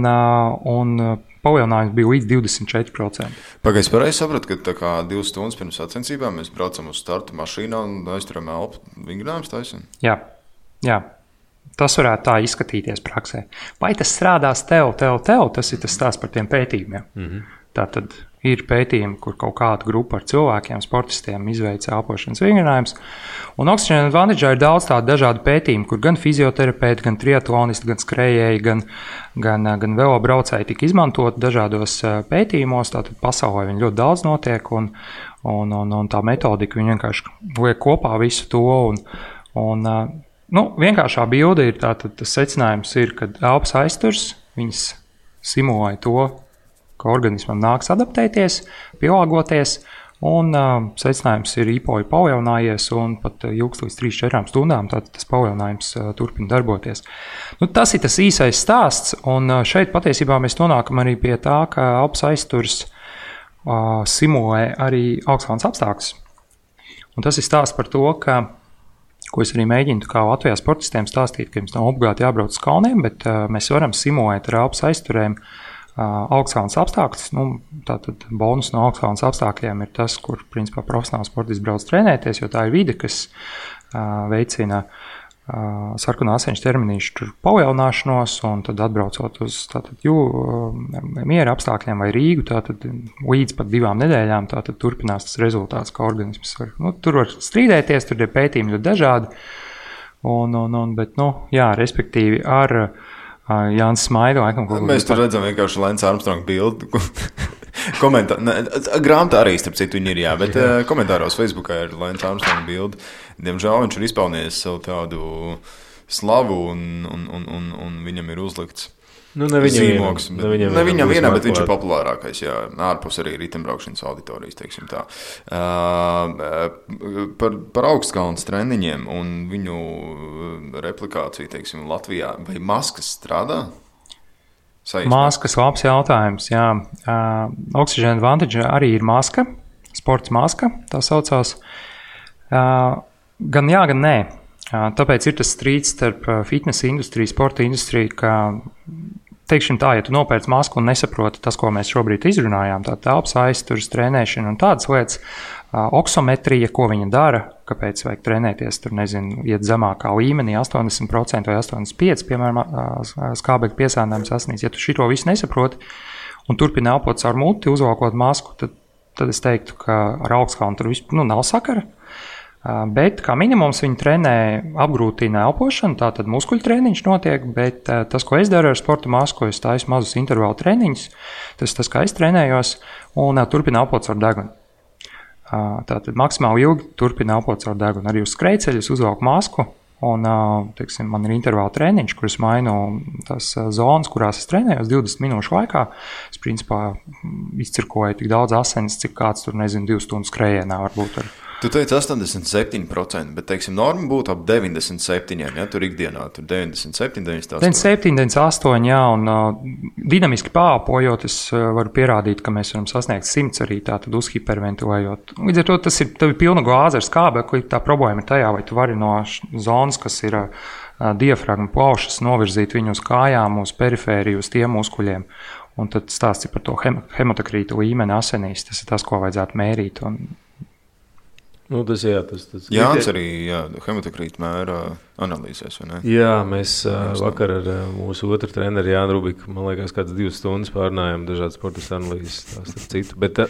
palielinājums bija līdz 24%. Pagaidzi, pareizi sapratu, ka tā kā 2 stundas pirms sacensībām mēs braucam uz starta mašīnā un aizturam elpu vingrinājumus taisam? Jā. Tas varētu tā izskatīties praksē. Vai tas strādās tev, tas ir tas stāsts par tiem pētījumiem. Mm-hmm. Tātad ir pētījumi, kur kaut kāda grupa ar cilvēkiem, sportistiem izveic elpošanas vingrinājumus. Un Oxygen Advantage ir daudz tādu dažādu pētījumu, kur gan fizioterapeiti, gan triatlonisti, gan skrējēji, gan velobraucēji tika izmantot dažādos pētījumos. Tātad pasaulē viņi ļoti daudz notiek, un tā metodika, viņi vienkārši liek kopā visu to. Vienkāršā bilde ir tātad tas secinājums ir, ka elpas aizturs, viņas simulē to, ka organismam nāks adaptēties, pielāgoties, un secinājums ir īpoji palielinājies, un pat ilgst līdz 3-4 stundām, tātad tas palielinājums turpina darboties. Tas ir tas īsais stāsts, un šeit patiesībā mēs nonākam arī pie tā, ka elpas aizturs simulē arī augstkalnes apstākļus. Un tas ir stāsts par to, ko es arī mēģinu kā Latvijā sportistiem stāstīt, ka jums nav obligāti jābrauc uz kalniem, bet mēs varam simulēt ar elpas aizturēm augstkalnes apstākļus. Tātad bonus no augstkalnes apstākļiem ir tas, kur principā profesionāli sportisti brauc trenēties, jo tā ir vide, kas veicina sarkanā asiņu ķermenīšu palielināšanos, un tad atbraucot uz miera apstākļiem vai Rīgu, tātad līdz pat 2 nedēļām tātad turpinās tas rezultāts, kā organisms var. Tur var strīdēties, tur ir pētījumi ļoti dažādi, bet respektīvi ar Jānis Smaido. Mēs tur redzam vienkārši Lance Armstrong bildi. Grāmatā arī, starp citu, viņi ir, bet komentāros Facebookā ir Lance Armstrong bildi. Diemžēl viņš ir izpelnījis savu tādu slavu un viņam ir uzlikts zīmogs. Ne viņam vienā, bet viņš ir populārākais, ārpus arī riteņbraukšanas auditorijas, teiksim tā. Par augstkalnes treniņiem un viņu replikāciju, teiksim, Latvijā, vai maskas strādā? Maskas, labs jautājums, jā. Oxygen Advantage arī ir maska, sports maska, tā saucās. Gan jā, gan nē. Tāpēc ir tas strīds starp fitness industriju, sporta industriju, ka, teikšim tā, ja tu nopērc masku un nesaproti tas, ko mēs šobrīd izrunājām, tā elpas aizturs, trenēšana un tādas lietas, oksometrija, ko viņa dara, kāpēc vajag trenēties, tur nezinu, iet zemākā līmenī, 80% vai 85%, piemēram, skābekļa piesārņojums asinīs. Ja tu šito visu nesaproti un turpini elpot caur muti, uzvalkot masku, tad es teiktu, ka ar augstkalnu tur vispār nav sakara. Bet kā minimums viņi trenē apgrūtina elpošanu, tātad muskuļu treniņš notiek, bet tas, ko es daru ar sporta masku, es taisu mazus intervālu treniņus, tas, kā es trenējos, un turpinu elpot caur degunu. Tātad maksimāli ilgi turpinu elpot caur degunu. Arī uz skrejceļus uzvelku masku, un, teiksim, man ir intervālu treniņš, kurus mainu tās zonas, kurās es trenējos 20 minūšu laikā. Es, principā, izcirkoju tik daudz asinis, cik kāds tur, 2 stundu skrējienā varbūt ar. Tu teici 87%, bet, teiksim, norma būtu ap 97%, ja tur ikdienā, tur 97, 98. 97, 98, jā, un dinamiski pāpojot, es varu pierādīt, ka mēs varam sasniegt 100 arī tātad uzhiperventilējot. Līdz ar to tas ir pilna glāze ar skābekli, tā problēma ir tajā, vai tu vari no zonas, kas ir diafragmu plaušas, novirzīt viņu uz kājām, uz perifēriju, uz tiem muskuļiem. Un tad stāsti par to hemotokrītu līmeni asinīs. Tas ir tas, ko vajadzētu mērīt. Tas Jānis arī hemotokrītu mēra analīzēs, vai ne? Jā, mēs vakar ar mūsu otru treneri Jānu Rubiku, man liekas, kāds 2 stundas pārnājām dažādas sportistu analīzes, tās ar citu. Bet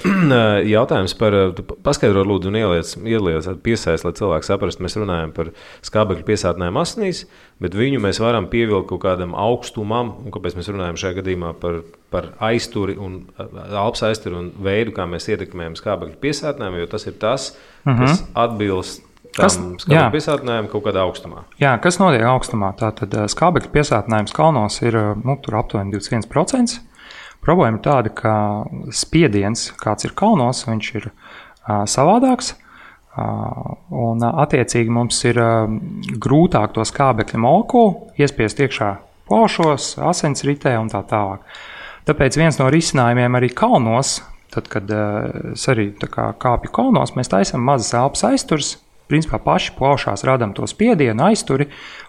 jautājums par, paskaidrot lūdzu un ieliec piesaist, lai cilvēki saprastu, mēs runājam par skābekļu piesātinājumu asinīs, bet viņu mēs varam pievilkt kaut kādam augstumam, un kāpēc mēs runājam šajā gadījumā par aizturi un alpas aizturi un veidu, kā mēs ietekmējam skābekļu piesātinājumu, jo tas ir tas, kas atbilst tam skābekļu piesātinājumu kaut kādā augstumā. Jā, kas notiek augstumā? Tātad skābekļu piesātinājums kalnos ir tur aptuveni 21%. Problēma ir tāda, ka spiediens, kāds ir kalnos, viņš ir savādāks. Un attiecīgi mums ir grūtāk to skābekļa molekulu iespiest iekšā plaušos, asinsritē un tā tālāk. Tāpēc viens no risinājumiem arī kalnos, tad, kad es arī kāpju kalnos, mēs taisam mazas elpas aizturs, principā paši plaušās radam to spiedienu aizturi,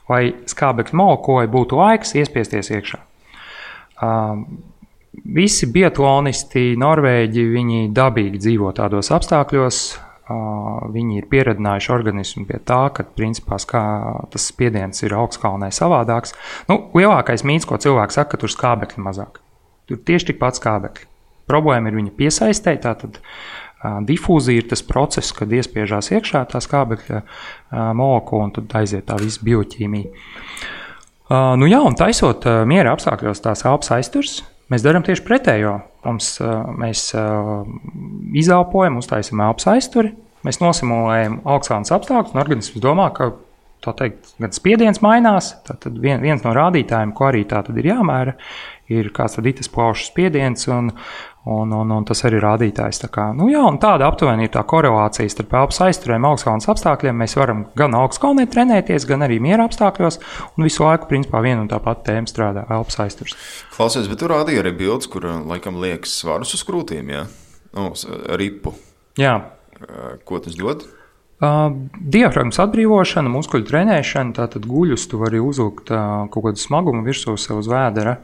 lai skābekļa molekulai būtu laiks iespiesties iekšā. Visi biatlonisti, norvēģi, viņi dabīgi dzīvo tādos apstākļos, viņi ir pieredzinājuši organismu pie tā, ka principā tas spiediens ir augstkalnē savādāks. Lielākais mīts, ko cilvēks saka, ka tur skābekļi mazāk. Tur tieši tikpat skābekļi. Problēma ir viņa piesaistē, tātad difūzija ir tas process, kad iespiežās iekšā tā skābekļa molekula un tad aiziet tā visa bioķīmija. Un taisot miera apstākļos tās elpas aizturs, mēs darām tieši pretējo. Mēs izelpojam, uztaisam elpas aizturi, mēs nosimulējam augstkalnes apstākļus un organisms domā, ka tā teikt, gan spiediens mainās, tad viens no rādītājiem, ko arī tā tad ir jāmēra, ir kāds tad itas plaušu spiediens un tas arī rādītājs. Un tāda aptuveni ir tā korelācija starp elpas aizturēm, augstkalnes apstākļiem. Mēs varam gan augstkalnē trenēties, gan arī miera apstākļos, un visu laiku, principā, viena un tā pati tēma strādā elpas aizturs. Klausies, bet tu rādīji arī bildes, kur laikam liekas svarus uz krūtīm, jā? Ripu. Jā. Ko tas dod? Diafragmas atbrīvošana, muskuļu trenēšana, tātad guļus tu vari uzlikt kaut kādu smagumu virsū sev uz vēdera.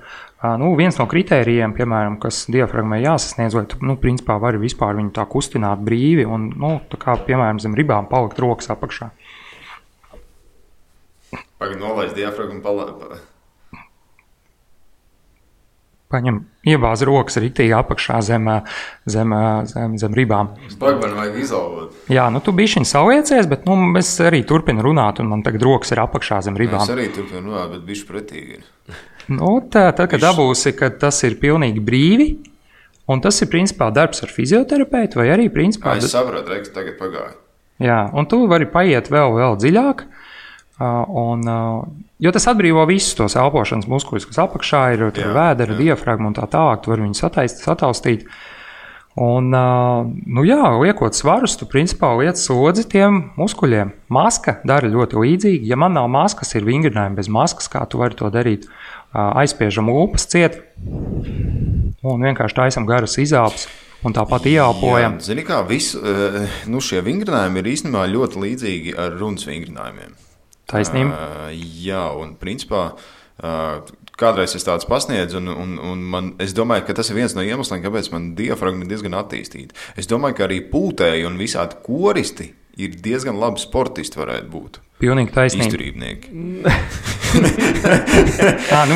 Viens no kritērijiem, piemēram, kas diafragmai jāsasniedz, lai tu, principā vari vispār viņu tā kustināt brīvi un, tā kā, piemēram, zem ribām palikt rokas apakšā. Pagaid nolaist diafragmu Paņem, iebāz rokas ritīgi apakšā zem ribām. Pagaid, man vajag izolvot. Jā, tu bišķiņ saliecies, bet es arī turpinu runāt, un man tagad rokas ir apakšā zem ribām. Es arī turpinu runāt, bet bišķi pretīgi ir. Tad, kad dabūsi, ka tas ir pilnīgi brīvi, un tas ir principā darbs ar fizioterapeitu, vai arī principā... Es saprotu, reiks tagad pagāju. Jā, un tu vari paiet vēl dziļāk, jo tas atbrīvo visus tos elpošanas muskuļus, kas apakšā ir, vēdera, diafragma un tā tālāk, tu vari viņus sataustīt. Un, liekot svarus, tu principā liec slodzi tiem muskuļiem. Maska dara ļoti līdzīgi. Ja man nav maskas, ir vingrinājumi bez maskas, kā tu vari to darīt. Aizspiežam lūpas ciet un vienkārši taisam garas izelpas un tāpat ieelpojam. Jā, zini kā, šie vingrinājumi ir īstenībā ļoti līdzīgi ar runas vingrinājumiem. Taisnība. Jā, un principā kādreiz es tāds pasniedzu, un es domāju, ka tas ir viens no iemesliem, kāpēc man diafragma ir diezgan attīstīta. Es domāju, ka arī pūtēji un visādi koristi ir diezgan labi sportisti varētu būt. Pilnīgi taisnība. Izturībnieki.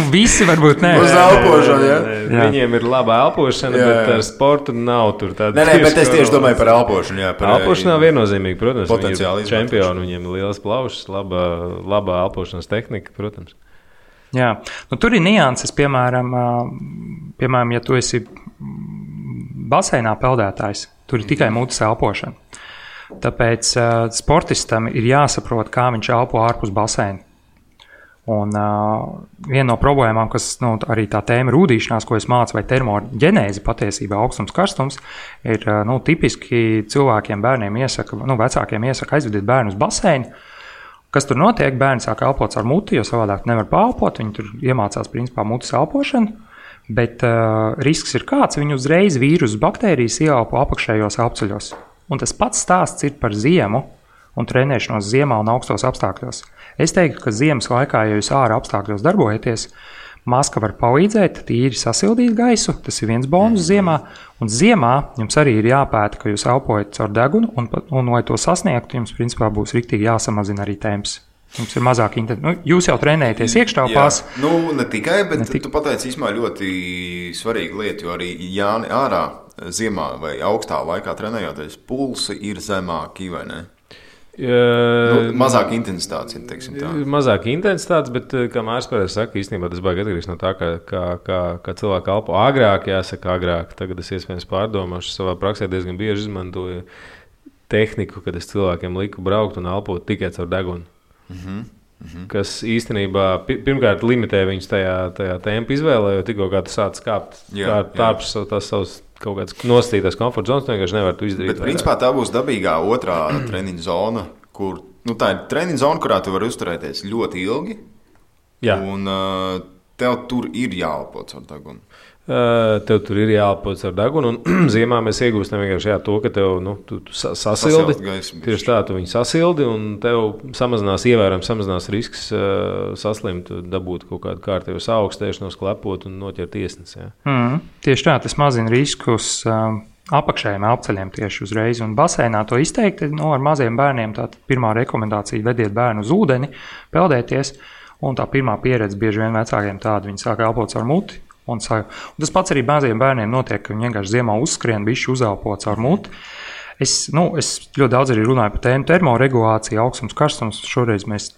Visi varbūt ne. Uz elpošanu, jā. Viņiem ir laba elpošana, bet ar sportu nav tur tāda. Nē, bet es tieši domāju par elpošanu, jā. Elpošana nav viennozīmīgi, protams. Potenciāli viņi ir čempioni, viņiem ir liels plaušas, labā elpošanas tehnika, protams. Jā, tur ir nianses, piemēram, ja tu esi baseinā peldētājs, tur ir tikai mutes elpošana. Tāpēc sportistam ir jāsaprot, kā viņš elpo ārpus baseina. Un viena no problēmām, kas arī tā tēma rūdīšanās, ko es mācu, vai termoģenēzi patiesībā augstums, karstums, ir tipiski cilvēkiem, bērniem iesaka, vecākiem iesaka aizvediet bērnu uz baseinu. Kas tur notiek? Bērni sāk elpot ar muti, jo savādāk nevar paelpot. Viņi tur iemācās principā mutes elpošanu, bet risks ir kāds, viņi uzreiz vīrusu baktērijas ieelpo apakšējos elpceļos. Un tas pats stāsts ir par ziemu un trenēšanos ziemā un augstos apstākļos. Es teiktu, ka ziemas laikā, ja jūs ārā apstākļos darbojaties, maska var palīdzēt tīri sasildīt gaisu, tas ir viens bonus ziemā, un ziemā jums arī ir jāpēta, ka jūs elpojat caur degunu, un lai to sasniegtu, jums principā būs riktīgi jāsamazina arī temps. Jums ir mazāk intensitāte. Jūs jau trenējaties iekštelpās. Ne tikai, bet tu pateici īstenībā ļoti svarīgu lietu, jo arī Jāni ārā ziemā vai augstā laikā trenējoties, pulsi ir zemāki, vai ne? Mazāk intensitātes, teiksim tā. Mazāk intensitātes, bet, kā Māris pareizi saka, īstenībā tas baigi atkarīgs no tā, kā cilvēki elpo agrāk, jāsaka agrāk. Tagad es iespējams pārdomāšu, savā praksē diezgan bieži izmantoju tehniku, kad es cilvēkiem liku braukt un elpot tikai caur degunu. Kas īstenībā pirmkārt limitē viņus tajā tempa izvēlē, jo tikko kā tu sāc kāpt tārpus tās savas kaut kādas nostītās komforta zonas, tu vienkārši nevar to izdarīt. Bet principā tā būs dabīgā otrā treniņa zona, tā ir treniņa zona, kurā tu vari uzturēties ļoti ilgi. Jā. Un tev tur ir jāelpo caur degunu. Tev tur ir jāelpo caur degunu, un ziemā mēs iegūstam vienkārši to, ka tev tu sasildi. Tieši tā, tu viņu sasildi, un tev ievērojami samazinās risks saslimt, dabūt kaut kādu kārtību augstēšanos, klepot un noķert iesnes. Tieši tā, tas mazina riskus apakšējiem elpceļiem tieši uzreiz. Un baseinā to izteikti ar maziem bērniem. Tā pirmā rekomendācija vediet bērnu uz ūdeni, peldēties. Un tā pirmā pieredze bieži vien vecākiem tāda, viņi sāk elpot caur muti. Un tas pats arī maziem bērniem notiek, ka viņi vienkārši ziemā uzskrien, bišķi uzelpo caur muti. Es ļoti daudz arī runāju par tēmu termoregulāciju, augstums, karstums. Šoreiz mēs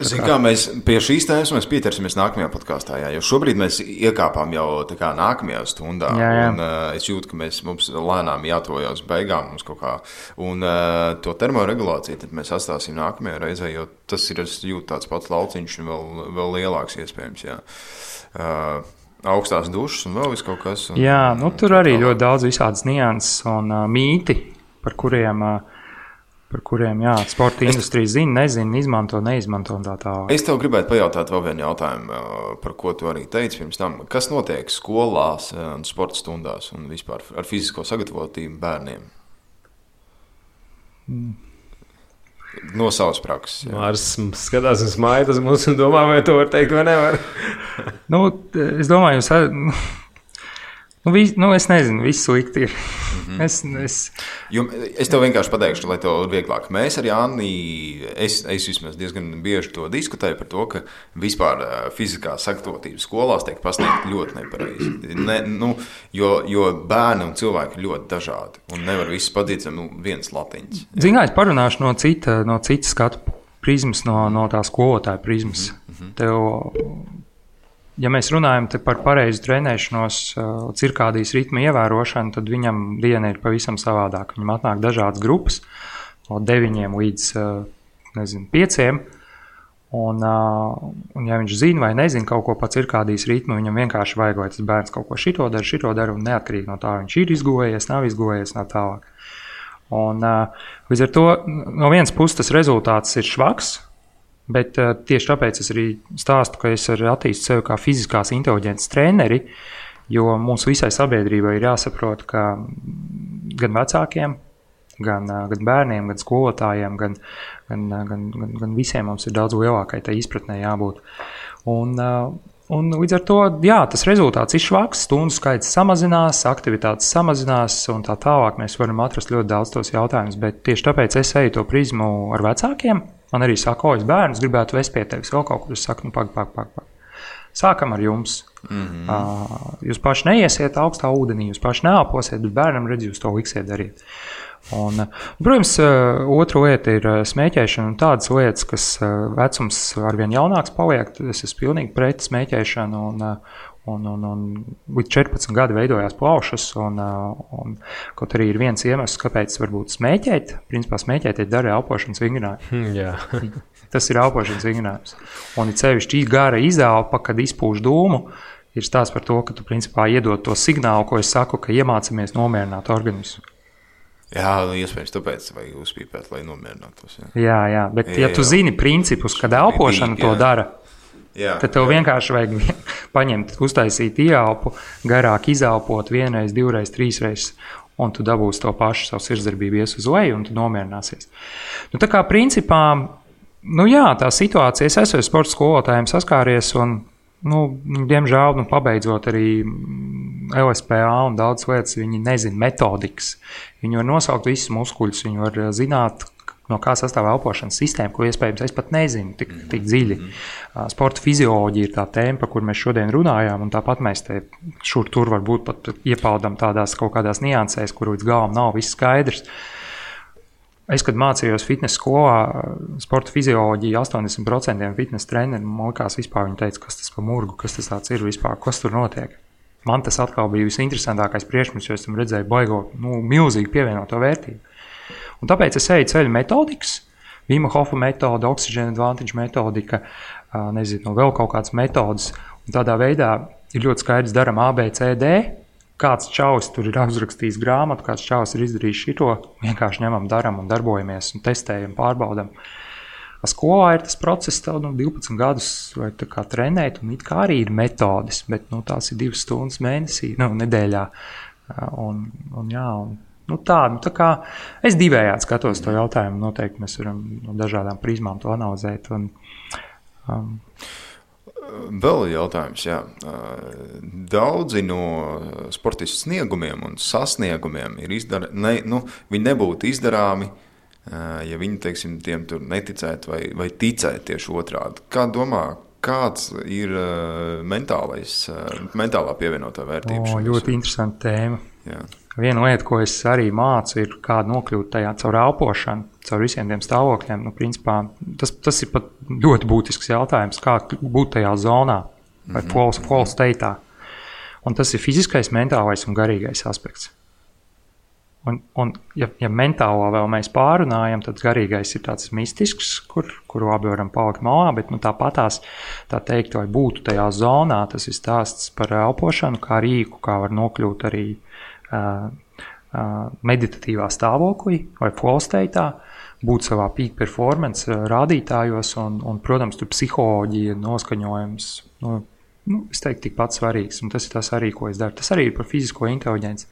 pie šīs tēmas pieķersimies nākamajā podkāstā, jo šobrīd mēs iekāpām jau nākamajā stundā. Un es jūtu, ka mums lēnām jātojas beigām mums kaut kā. Un to termoregulāciju tad mēs atstāsim nākamajā reizē, jo tas ir, es jūtu, tāds pats lauciņš un vēl lielāks iespējams, augstās dušas un vēl viss kaut kas. Tur arī ļoti daudz visādas nianses un mīti, par kuriem sporta industrija zina, nezina, izmanto, neizmanto un tā tālāk. Es tev gribētu pajautāt vēl vienu jautājumu, par ko tu arī teici pirms tam. Kas notiek skolās un sporta stundās un vispār ar fizisko sagatavotību bērniem? No savas prakses. Māris skatās un smaida uz mums un domā, vai to var teikt vai nevar. Es domāju, es nezinu, viss slikti ir. Es tev vienkārši pateikšu, lai tev vieglāk. Mēs ar Jāni, es vismaz diezgan bieži to diskutēju par to, ka vispār fiziskā sagatavotība skolās tiek pasniegta ļoti nepareizi. Jo bērni un cilvēki ir ļoti dažādi un nevar visus padīt zem vienas latiņas. Zini, es parunāšu no cita skatu prizmas, no tā skolotāja prizmas. Ja mēs runājam par pareizu trenēšanos, cirkādijas ritma ievērošanu, tad viņam diena ir pavisam savādāk. Viņam atnāk dažādas grupas, no 9 līdz 5. Un ja viņš zina vai nezina kaut ko par cirkādijas ritmu, viņam vienkārši vajag, lai tas bērns kaut ko šito dara, un neatkarīgi no tā, viņš ir izgulējies, nav izgulējies, nav tālāk. Un līdz ar to no vienas puses tas rezultāts ir švaks, bet tieši tāpēc es arī stāstu, ka es arī attīstu sevi kā fiziskās inteliģences treneri, jo mums visai sabiedrībai ir jāsaprot, ka gan vecākiem, gan bērniem, gan skolotājiem, gan visiem mums ir daudz lielākai tai izpratnē jābūt. Un līdz ar to, tas rezultāts ir švaks, stundu skaits samazinās, aktivitātes samazinās un tā tālāk mēs varam atrast ļoti daudz tos jautājumus, bet tieši tāpēc es eju to prizmu ar vecākiem. Man arī saka, es bērnus gribētu vest pie tevis vēl kaut kur. Es saku, pag. Sākam ar jums. Jūs paši neiesiet augstā ūdenī, jūs paši neelposiet, bet bērnam redz, jūs to liksiet darīt. Un, protams, otra lieta ir smēķēšana un tādas lietas, kas vecums arvien jaunāks paliek. Es esmu pilnīgi pret smēķēšanu un līdz 14 gadi veidojās plaušas, un kaut arī ir viens iemesls, kāpēc varbūt smēķēt. Principā smēķēt ir dara elpošanas vingrinājumu. Tas ir elpošanas vingrinājums. Un ir sevišķi gara izelpa, kad izpūš dūmu, ir stāsts par to, ka tu principā iedod to signālu, ko es saku, ka iemācamies nomierināt organismu. Jā, iespējams, tāpēc vajag uzpīpēt, lai nomierinātos. Jā, bet ja tu zini principus, kad elpošana to dara, tad tev vienkārši vajag paņemt, uztaisīt ieelpu, garāk izelpot 1, 2, 3 reizes. un tu dabūsi to pašu savu sirdsdarbību ies uz leju, un tu nomierināsies. Nu, tā kā principā, nu jā, tā situācija, es esmu sporta skolotājiem saskāries, un, nu, diemžēl, nu, pabeidzot arī LSPA un daudz lietas, viņi nezina metodikas. Viņi var nosaukt visus muskuļus, viņi var zināt, no kā sastāv elpošanas sistēma, ko iespējams es pat nezinu tik dziļi. Sporta fizioloģija ir tā tēma, par kur mēs šodien runājām, un tāpat mēs te šur tur varbūt pat iepaudam tādās kaut kādās niansēs, kur līdz galam nav viss skaidrs. Es, kad mācījos fitnesa skolā, sporta fizioloģija 80% fitnesa treneri, man likās vispār, viņi teica, kas tas pa murgu, kas tas tāds ir vispār, kas tur notiek. Man tas atkal bija visinteresantākais priekšmets, jo es tam redzēju baigo, milzīgi pievienoto vērtību. Un tāpēc es eju ceļu metodikas, Vima Hofa metode, Oxygen Advantage metodika, nezinu, vēl kaut kādas metodas. Un tādā veidā ir ļoti skaidrs daram ABCD, kāds čalis tur ir uzrakstījis grāmatu, kāds čalis ir izdarījis šito, vienkārši ņemam, daram un darbojamies un testējam, pārbaudam. Skolā ir tas process, tev 12 gadus vai tā kā trenēt, un it kā arī ir metodes, bet tās ir 2 stundas mēnesī, nedēļā. Tā kā es divējādi skatos to jautājumu, noteikti mēs varam no dažādām prizmām to analizēt. Vēl jautājums, jā. Daudzi no sportistu sniegumiem un sasniegumiem ir viņi nebūtu izdarāmi, ja viņi, teiksim, tiem tur neticētu vai ticētu tieši otrādi. Kā domā, kāds ir mentālā pievienotā vērtība? Ļoti interesanta tēma. Jā. Viena lieta, ko es arī mācu, ir kā nokļūt tajā caur elpošanu, caur visiem tiem stāvokļiem. Principā, tas ir pat ļoti būtisks jautājums, kā būt tajā zonā vai flow state'ā. Un tas ir fiziskais, mentālais un garīgais aspekts. Un ja mentālo vēl mēs pārunājam, tad garīgais ir tāds mistisks, kuru labi varam palikt malā, bet tāpatās, tā teikt, vai būtu tajā zonā, tas ir stāsts par elpošanu, kā rīku, kā var nokļūt arī meditatīvā stāvoklī vai flow state'ā, būt savā peak performance rādītājos un protams, tur psiholoģija, noskaņojums, es teiktu, tikpat svarīgs, un tas ir tas arī, ko es daru. Tas arī ir par fizisko inteliģenci.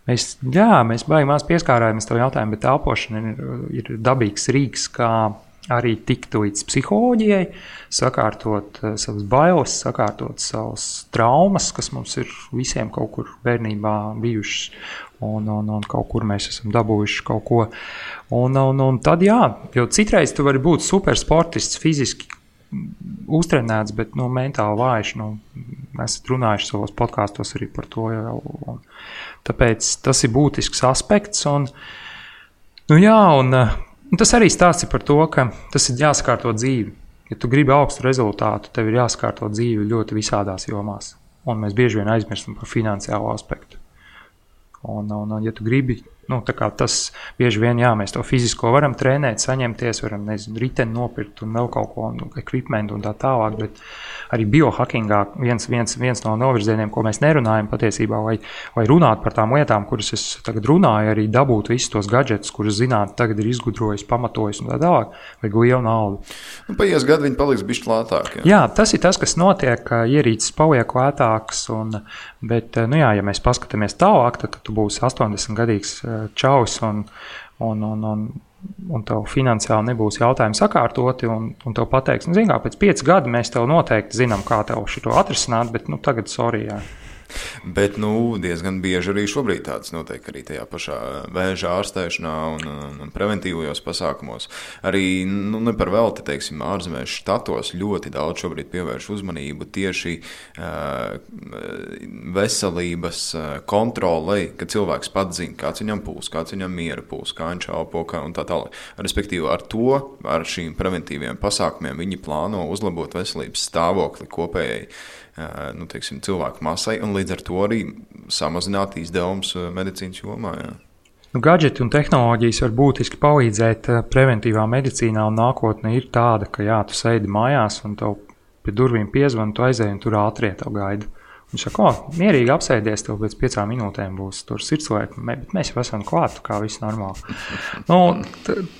Mēs baigi maz pieskārājamies to jautājumu, bet elpošana ir dabīgs rīks, kā arī tikt līdz psiholoģijai, sakārtot savas bailes, sakārtot savas traumas, kas mums ir visiem kaut kur bērnībā bijušas, un kaut kur mēs esam dabūjuši kaut ko. Un tad jo citreiz tu vari būt supersportists, fiziski uztrenēts, bet mentāli vājš. Esat runājuši savos podkāstos arī par to jau. Tāpēc tas ir būtisks aspekts. Tas arī stāsts ir par to, ka tas ir jāsakārto dzīvi. Ja tu gribi augstu rezultātu, tev ir jāsakārto dzīvi ļoti visādās jomās. Un mēs bieži vien aizmirstam par finansiālo aspektu. Un ja tu gribi, tā kā tas bieži vien, mēs to fizisko varam trenēt, saņemties, varam, riteni nopirkt un vēl kaut ko, ekvipmentu un tā tālāk, bet arī biohackingā viens no novirzieniem, ko mēs nerunājam patiesībā, vai runāt par tām lietām, kuras es tagad runāju, arī dabūt visus tos gadžetus, kurus zināt, tagad ir izgudrojis, pamatojis un tā tālāk, vai lielu naudu. Paies gadu viņi paliks bišķi lētāk. Jā, tas ir tas, kas notiek, ka ierīces paliek lētākas, bet, ja mēs paskatāmies tālāk, tad tu būsi 80-gadīgs čalis un tev finansiāli nebūs jautājumi sakārtoti, un tev pateiks, pēc 5 gadu mēs tev noteikti zinām, kā tev šito atrisināt, bet tagad sorry, jā. Bet diezgan bieži arī šobrīd tāds notiek arī tajā pašā vēža ārstēšanā un preventīvajos pasākumos. Arī ne par velti, teiksim, ārzemēs štatos ļoti daudz šobrīd pievērš uzmanību tieši veselības kontrolei, ka cilvēks pats zina, kāds viņam puls, kāds viņam miera puls, kā viņš elpo un tā tālāk. Respektīvi ar šīm preventīviem pasākumiem viņi plāno uzlabot veselības stāvokli kopējai cilvēku masai un līdz ar to arī samazināt izdevumus medicīnas jomā. Jā. Gadžeti un tehnoloģijas var būtiski palīdzēt preventīvā medicīnā, un nākotne ir tāda, ka tu sēdi mājās un tev pie durvīm piezvan, tu aizēji un tur ātrie tev gaida. Viņš saka, mierīgi apsēdies, tev pēc 5 minūtēm būs tur sirdslieka, bet mēs jau esam klāt, kā viss normāli.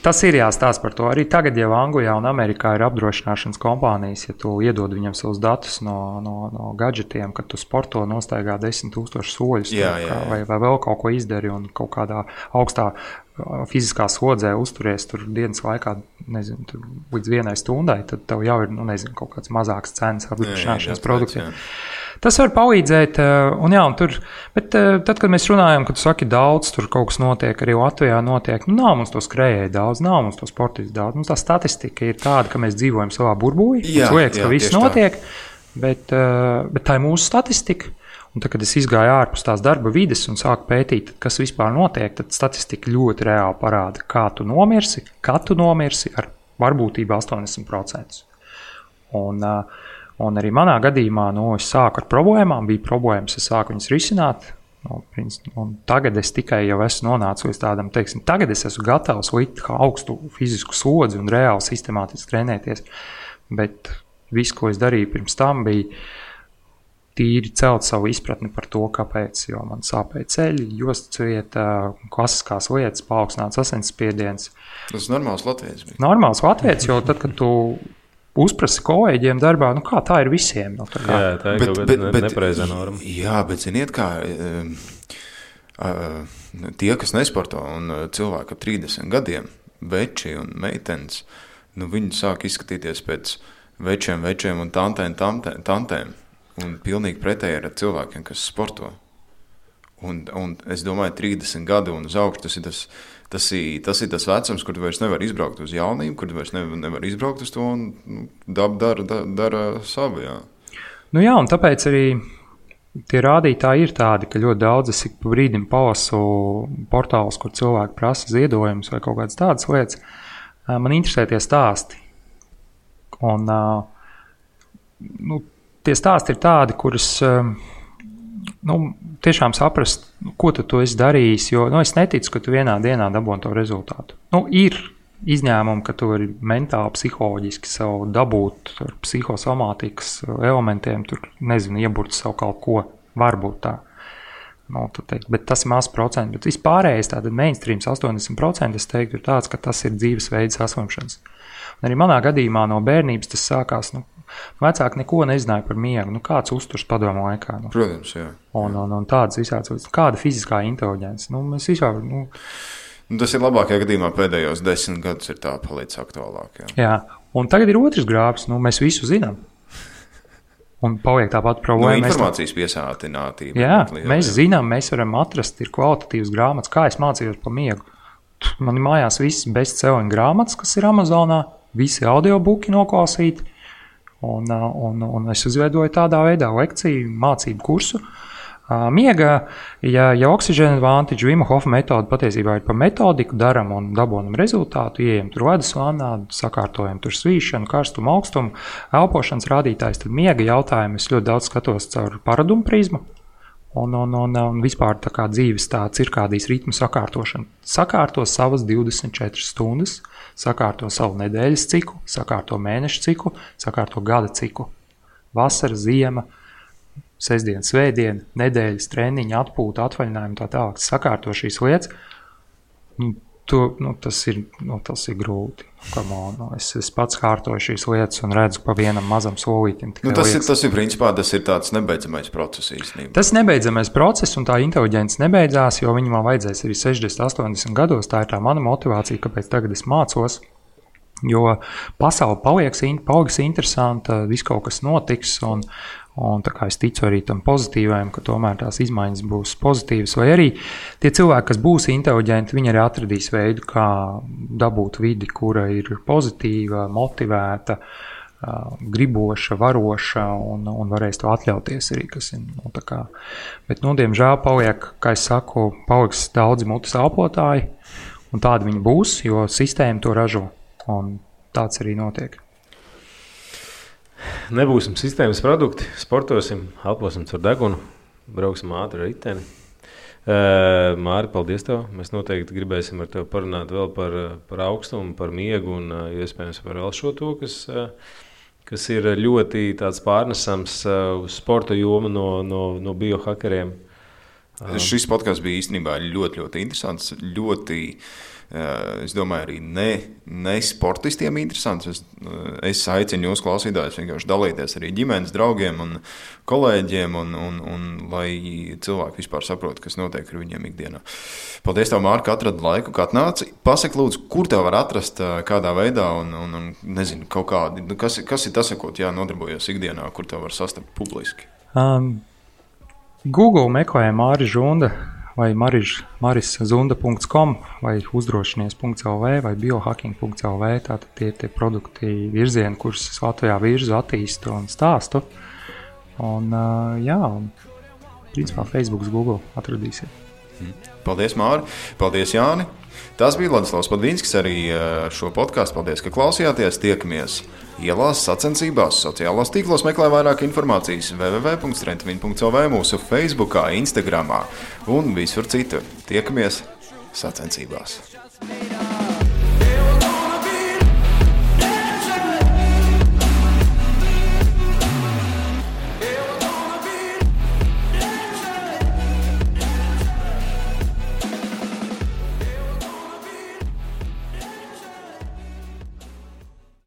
Tas ir jāstāsta par to. Arī tagad jau Anglijā un Amerikā ir apdrošināšanas kompānijas, ja tu iedod viņam savus datus no gadžetiem, kad tu sporto nostaigā 10,000 soļus vai vēl kaut ko izdari un kaut kādā augstā fiziskā slodzē uzturies tur dienas laikā, nezinu, tur līdz 1 stundai, tad tev jau ir, kaut kāds mazāks cenas apdrošināšanas produktiem. Tas var palīdzēt, un tur, bet tad, kad mēs runājam, kad tu saki daudz, tur kaut kas notiek, arī Latvijā notiek, nav mums to skrējēji daudz, nav mums to sportisti daudz, mums tā statistika ir tāda, ka mēs dzīvojam savā burbulī, mums liekas, ka viss notiek, bet tā ir mūsu statistika. Un tad, kad es izgāju ārpus tās darba vides un sāku pētīt, kas vispār notiek, tad statistika ļoti reāli parāda, kā tu nomirsi, kad tu nomirsi ar varbūtību 80%. Un arī manā gadījumā es sāku ar problēmām, bija problēmas, es sāku viņas risināt. Un tagad es tikai jau esmu nonācis līdz tādam, tagad es esmu gatavs likt augstu fizisku slodzi un reāli sistemātiski trenēties. Bet viss, ko es darīju pirms tam, bija tīri celt savu izpratni par to, kāpēc, jo man sāpēja ceļi, jostas vieta, klasiskās lietas, paaugstināts asinsspiediens. Tas normāls latviečs bija. Normāls latviečs, jo tad, kad tu uzprasi kolēģiem darbā, kā tā ir visiem. Jā, tā ir kaut kāda nepareizā norma. Jā, bet ziniet kā, tie, kas nesporto un cilvēki ap 30 gadiem, veči un meitenes, viņi sāk izskatīties pēc večiem un tantēm. Un pilnīgi pretēji ar cilvēkiem, kas sporto. Un es domāju, 30 gadu un uz augšu tas ir tas vecums, kur tu vairs nevar izbraukt uz jaunību, kur tu vairs nevar izbraukt uz to, un daba dara savu, jā. Jā, un tāpēc arī tie rādītāji ir tādi, ka ļoti daudz es ik pa brīdim palasu portālus, kur cilvēki prasa ziedojumus vai kaut kādas tādas lietas. Man interesē tie stāsti. Un, tie stāsti ir tādi, kurus tiešām saprast, ko tu esi darījis, jo es neticu, ka tu vienā dienā dabūni to rezultātu. Ir izņēmumi, ka tu vari mentāli, psiholoģiski sev dabūt ar psihosomātikas elementiem, tur, ieburt sev kaut ko, varbūt tā. Bet tas ir mazs procents, bet vispārējais tātad mainstreams 80% es teiktu ir tāds, ka tas ir dzīvesveida saslimšanas. Un arī manā gadījumā no bērnības tas sākās, vecāki neko nezināja par miegu, kāds uzturs padomu laikā. Protams, jā. Un tādas visādas, kāda fiziskā inteliģence. Mēs vispār, tas ir labākajā gadījumā pēdējos 10 gadus ir tā palicis aktuālāk. Jā, un tagad ir otrs grābs, mēs visu zinām. Un paliek tāpat problēma. Informācijas piesātinātība. Jā, mēs zinām, mēs varam atrast, ir kvalitatīvas grāmatas, kā es mācījos par miegu. Man ir mājās visas bestselling grāmatas, kas ir Amazonā, visi audiobuki noklausīti. Un es izveidoju tādā veidā lekciju, mācību kursu. Miega, ja Oxygen Advantage, Wim Hof metode patiesībā ir par metodiku, daram un dabonam rezultātu, ieejam tur ledus vannā, sakārtojam tur svīšanu, karstumu, augstumu, elpošanas rādītājs, tad miega jautājumu es ļoti daudz skatos caur paradumu prizmu. Un vispār tā kā dzīves tā cirkādijas ritmu sakārtošana. Sakārto savas 24 stundas, sakārto savu nedēļas ciklu, sakārto mēnešu ciklu, sakārto gada ciklu. Vasara, ziema, sestdiena, svētdiena, nedēļas, treniņa, atpūta, atvaļinājumi tā tālāk. Sakārto šīs lietas. Tas ir grūti. Es pats kārtoju šīs lietas un redzu pa vienam mazam solītim. Tas ir principā tas ir tāds nebeidzamais process īstenībā. Tas nebeidzamais process un tā inteliģence nebeidzās, jo viņam vajadzēs arī 60, 80 gados. Tā ir tā mana motivācija, kāpēc tagad es mācos. Jo pasaule paliks interesanta, viss kaut kas notiks un tā kā es ticu arī tam pozitīvajam, ka tomēr tās izmaiņas būs pozitīvas, vai arī tie cilvēki, kas būs inteliģenti, viņi arī atradīs veidu, kā dabūt vidi, kura ir pozitīva, motivēta, griboša, varoša un varēs to atļauties arī, kas ir, Bet, diemžēl paliek, kā es saku, paliks daudzi mutes elpotāji, un tādi viņi būs, jo sistēma to ražo, un tāds arī notiek. Nebūsim sistēmas produkti, sportosim, elposim caur degunu, brauksim ātri riteni. Māri, paldies tev. Mēs noteikti gribēsim ar tevi parunāt vēl par augstumu, par miegu un iespējams par vēl šo to, kas ir ļoti tāds pārnesams uz sporta jomu no biohakeriem. Šis podkāsts bija īstenībā ļoti, ļoti interesants. Ļoti, es domāju, arī ne sportistiem interesants. Es aicinu jūs klausītājus vienkārši dalīties arī ģimenes draugiem un kolēģiem, un lai cilvēki vispār saprot, kas notiek ar viņiem ikdienā. Paldies tev, Mārka, atradi laiku, kā atnāci. Pasaki, lūdzu, kur tev var atrast, kādā veidā, un nezinu, kaut kādi, kas ir tas, ar ko nodarbojies ikdienā, kur tev var sastapt publiski? Google meklē Māris Zunda vai mariszunda.com vai uzdrošinies.lv vai biohacking.lv. Tātad tie ir tie produkti virzieni, kurus es Latvijā virzu, attīstu un stāstu. Un principā Facebooks, Google atradīsiet. Paldies, Māri. Paldies, Jāni. Tas bija Ladislavs Padvīnskis arī šo podkāstu. Paldies, ka klausījāties. Tiekamies ielās, sacensībās, sociālās tīklos. Meklē vairāk informācijas www.rentvin.lv, mūsu Facebookā, Instagramā un visur citur. Tiekamies sacensībās.